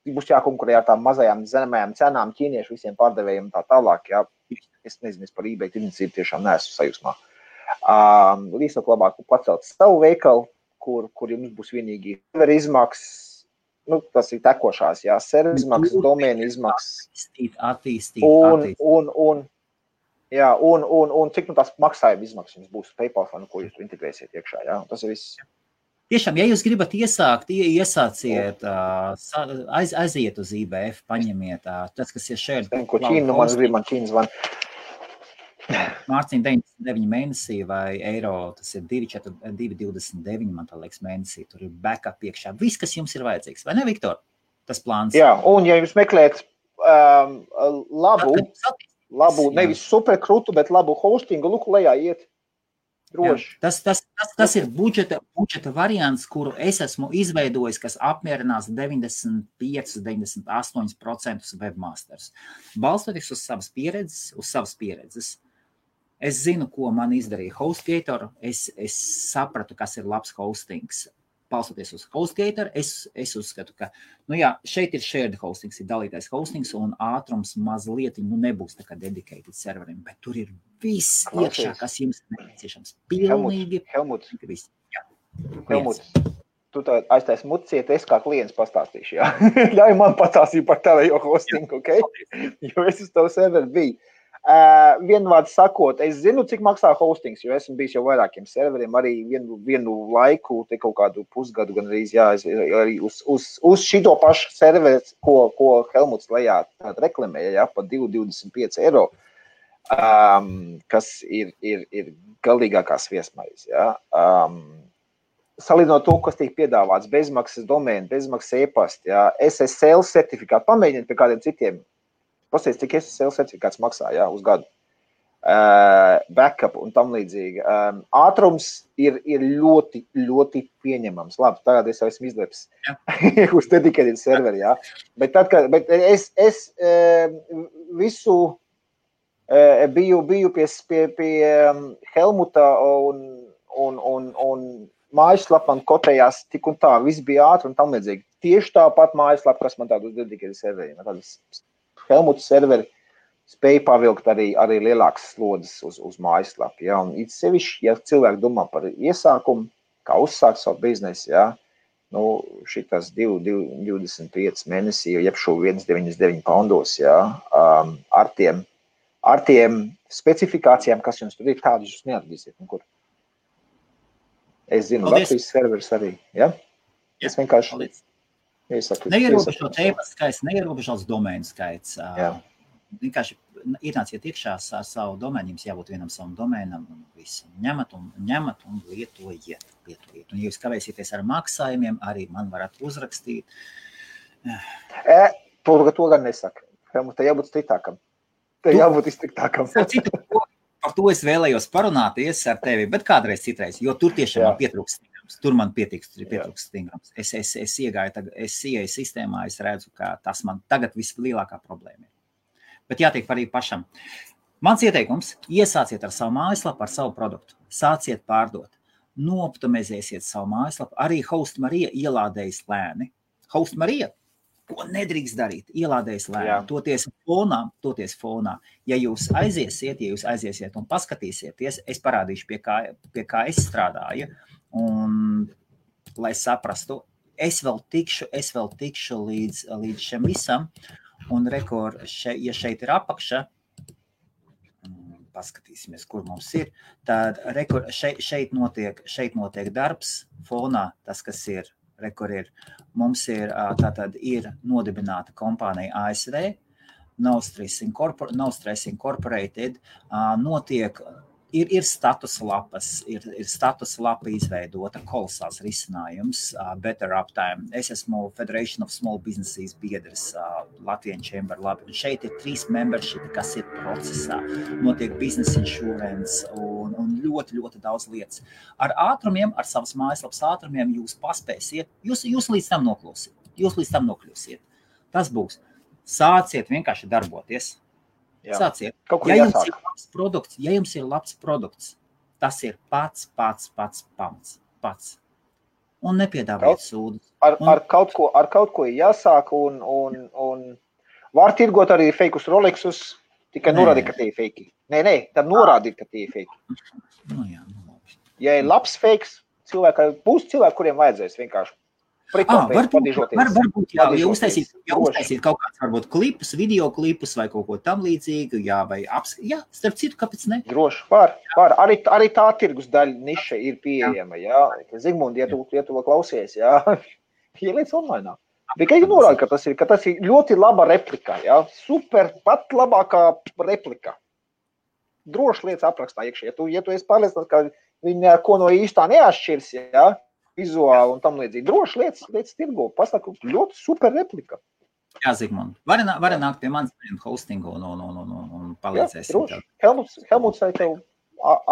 būs jākonkurē ar tām mazajām zemējām cenām ķīniešu visiem pārdevējiem tā tālāk, jā. Es nezinu, par eBay tirdzniecību tiešām neesmu sajūsmā. Līdzāk labāk pacelt savu veikalu, kur jums būs vienīgi servera izmaksas, tas ir tekošās, jā, servera izmaksas, domēna izmaksas. Attīstīt. Un cik tās maksājuma izmaksas jums būs PayPal, ko jūs integrēsiet iekšā, jā, tas ir viss. Tiešām, ja jūs gribat iesāciet, aiziet uz IBF, paņemiet tas, kas ir šeit. Ko Ķīna, man Ķīna zvan. Mārciņ 99 mēnesī vai eiro, tas ir 2,29, man tā liekas mēnesī, tur ir backup iekšā. Viss, kas jums ir vajadzīgs, vai ne, Viktor? Tas plāns. Jā, un ja jūs meklēt labu, nevis superkrutu, bet labu hostingu, lūk, lejā iet. Droši. Tas ir budžeta variants, kuru es esmu izveidojis, kas apmierinās 95–98% webmasters. Balstoties uz savas pieredzes, es zinu, ko man izdarīja HostGator, es sapratu, kas ir labs hostings. palstoties uz HostGator, es uzskatu, ka, šeit ir shared hostings, ir dalītais hostings, un ātrums mazliet, nebūs tā kā dedicated serveriem, bet tur ir viss iekšā, kas jums nepieciešams. Pilnīgi. Helmuts. Viss. Helmuts. Tu aiztais muciet, es kā klients pastāstīšu, jā. Ļauj man pastāstīt par tavu hostingu, ok? Jo es uz tavu serveri biju. Vienvārds sakot, es zinu, cik maksā hostings, jo esmu bijis jau vairākiem serveriem, arī vienu laiku, te kaut kādu pusgadu gan arī uz šito pašu serveri, ko Helmuts lejā reklamēja, pa 2,25 eiro, kas ir galīgākās viesmaiz, jā. Salīdzinot to, kas tiek piedāvāts, bezmaksas domēni, bezmaksas e-pasti, jā, SSL certifikātu, pamēģiniet pie kādiem citiem. Pasties, cik SSL certifikāts maksā, jā, uz gadu. Backup un tam līdzīgi. Ātrums ir ļoti, ļoti pieņemams. Labi, tagad es esmu izleps uz dedicated serveri, jā. Bet es visu biju pie Helmuta un mājaslapam kotējās tik un tā, viss bija ātri un tam līdzīgi. Tieši tāpat mājaslapa, kas man tādu uz dedicated serveriem. Tādas Helmuta serveri spēja pavilkt arī lielākas slodzes uz mājaslapu. Ja? Un it sevišķi, ja cilvēki domā par iesākumu, kā uzsākt savu biznesu, ja? Šitas 25 mēnesī, jeb šo 1,99 poundos, ja? Ar tiem specifikācijām, kas jums tur ir, tādus jūs neatradīsiet nekur. Es zinu, Latvijas serveris arī, ja? Es vienkārši iesaku. Neierobežots e-pasta skaits, neierobežots domēnu skaits. Vienkārši ienāciet iekšā ar savu domēnu, jums jābūt vienam savam domēnam un visu. Ņemat un lietojiet. Un ja jūs kavēsieties ar maksājumiem, arī man varat uzrakstīt. To gan nesaka. Te jābūt striktākam. Par to es vēlējos parunāties ar tevi, bet kādreiz citreiz, jo tur tiešām man pietrūkst stingrums. Tur man pietrūkst stingrums. Es ieeju sistēmā, es redzu, ka tas man tagad vislielākā problēma ir. Bet jātiek arī pašam. Mans ieteikums, iesāciet ar savu mājaslapu, ar savu produktu. Sāciet pārdot. Nooptimizēsiet savu mājaslapu. Arī HostMarija ielādējas lēni. HostMarija, ko nedrīkst darīt, ielādējas lēni. Toties fonā. Ja jūs aiziesiet un paskatīsieties, es parādīšu, pie kā es strādāju. Un, lai saprastu, es vēl tikšu līdz šim visam. Un ja šeit ir apakša, paskatīsimies, kur mums ir, tad šeit notiek darbs fonā, tas, kas ir, mums ir nodibināta kompānija ASV, No Stress Incorporated, ir status lapas, ir status lapa izveidota, kolosāls risinājums, Better Uptime. Es esmu Federation of Small Businesses biedrs, Latvian Chamber labi. Un šeit ir 3 membershipi, kas ir procesā. Notiek business insurance un ļoti, ļoti daudz lietas. Ar ātrumiem, ar savas mājaslapas ātrumiem jūs paspēsiet, jūs līdz tam nokļūsiet. Tas būs. Sāciet vienkārši darboties. Sāciet. Ja jums ir labs produkts, tas ir pats pamats. Un nepiedāvājiet sūdu. Ar kaut ko jāsāk un var tirgot arī feikus Rolexus, tikai norādīt, ka tie ir feiki. Nē, tad norādīt, ka tie ir feiki. Ja ir labs feiks, būs cilvēki, kuriem vajadzēs vienkārši. Varbūt jau uztaisīt kaut kāds varbūt klipus, video klipus vai kaut ko tam līdzīgu, starp citu, kāpēc ne? Droši, var. Arī tā tirgus daļa niša ir pieejama, jā. Zigmundi, ja tu vēl klausies, jā, ieliec online. Tikai norāda, ka tas ir ļoti laba replika, jā, super, pat labākā replika. Droši lietas aprakstā iekšā, ja tu esi pārliecināts, ka viņi ko no īstā neatšķirs, jā, vizuāli un tam līdzīgi. Droši lietas tirgo. Pasaku, ļoti super replika. Jā, Zigmund. Vari nākt pie manis hostingu un palīdzēsim. Jā, droši. Helmuts vai tev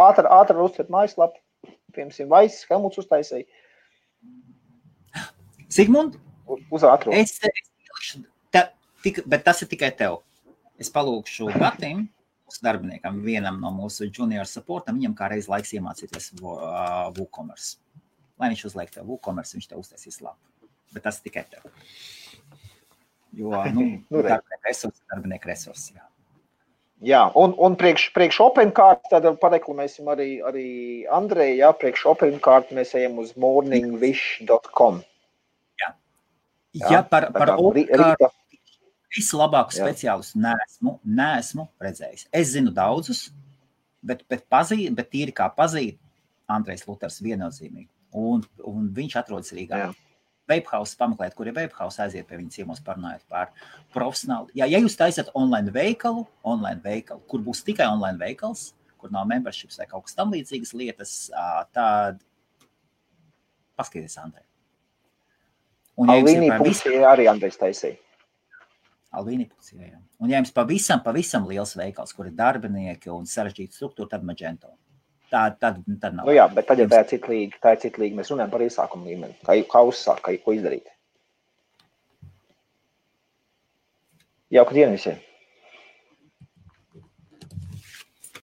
ātri uztver mājaslapu. Piemēram, Vaiss, Helmuts uztaisēja. Zigmund? Uz ātro. Bet tas ir tikai tev. Es palūkšu Gatim, mūsu darbiniekam, vienam no mūsu junior supportam, viņam kā reiz laiks iemācīties WooCommerce. lai viņš uzliek tev WooCommerce, viņš tev uztaisīs labu. Bet tas tikai tev. Jo, darbinieku resursi, jā. Jā, un priekš OpenCart, tad pareklamēsim arī Andreju, jā, priekš OpenCart mēs ejam uz morningwish.com. Jā, par OpenCart vislabāku speciālistu neesmu redzējis. Es zinu daudzus, bet tīri kā pazīt, Andrejs Luters viennozīmīgi. Un viņš atrodas Rīgā. Vapehouse pameklēt, kur ir Vapehouse, aiziet pie viņa ciemos parunājot par profesionāli. Ja jūs taisat online veikalu, kur būs tikai online veikals, kur nav memberships vai kaut kas tam līdzīgas lietas, tad paskaties Andrej. Alvīnī Pucija arī Andrejs taisīja. Alvīnī Pucija, jā. Un ja jums pavisam liels veikals, kur ir darbinieki un sarežģīta struktūra, tad Magento. Tad nav. Nu jā, bet tad, ja tā ir cita līga, mēs runājam par iesākumu līmeni. Kā uzsākt, ko izdarīt. Jauka diena visiem!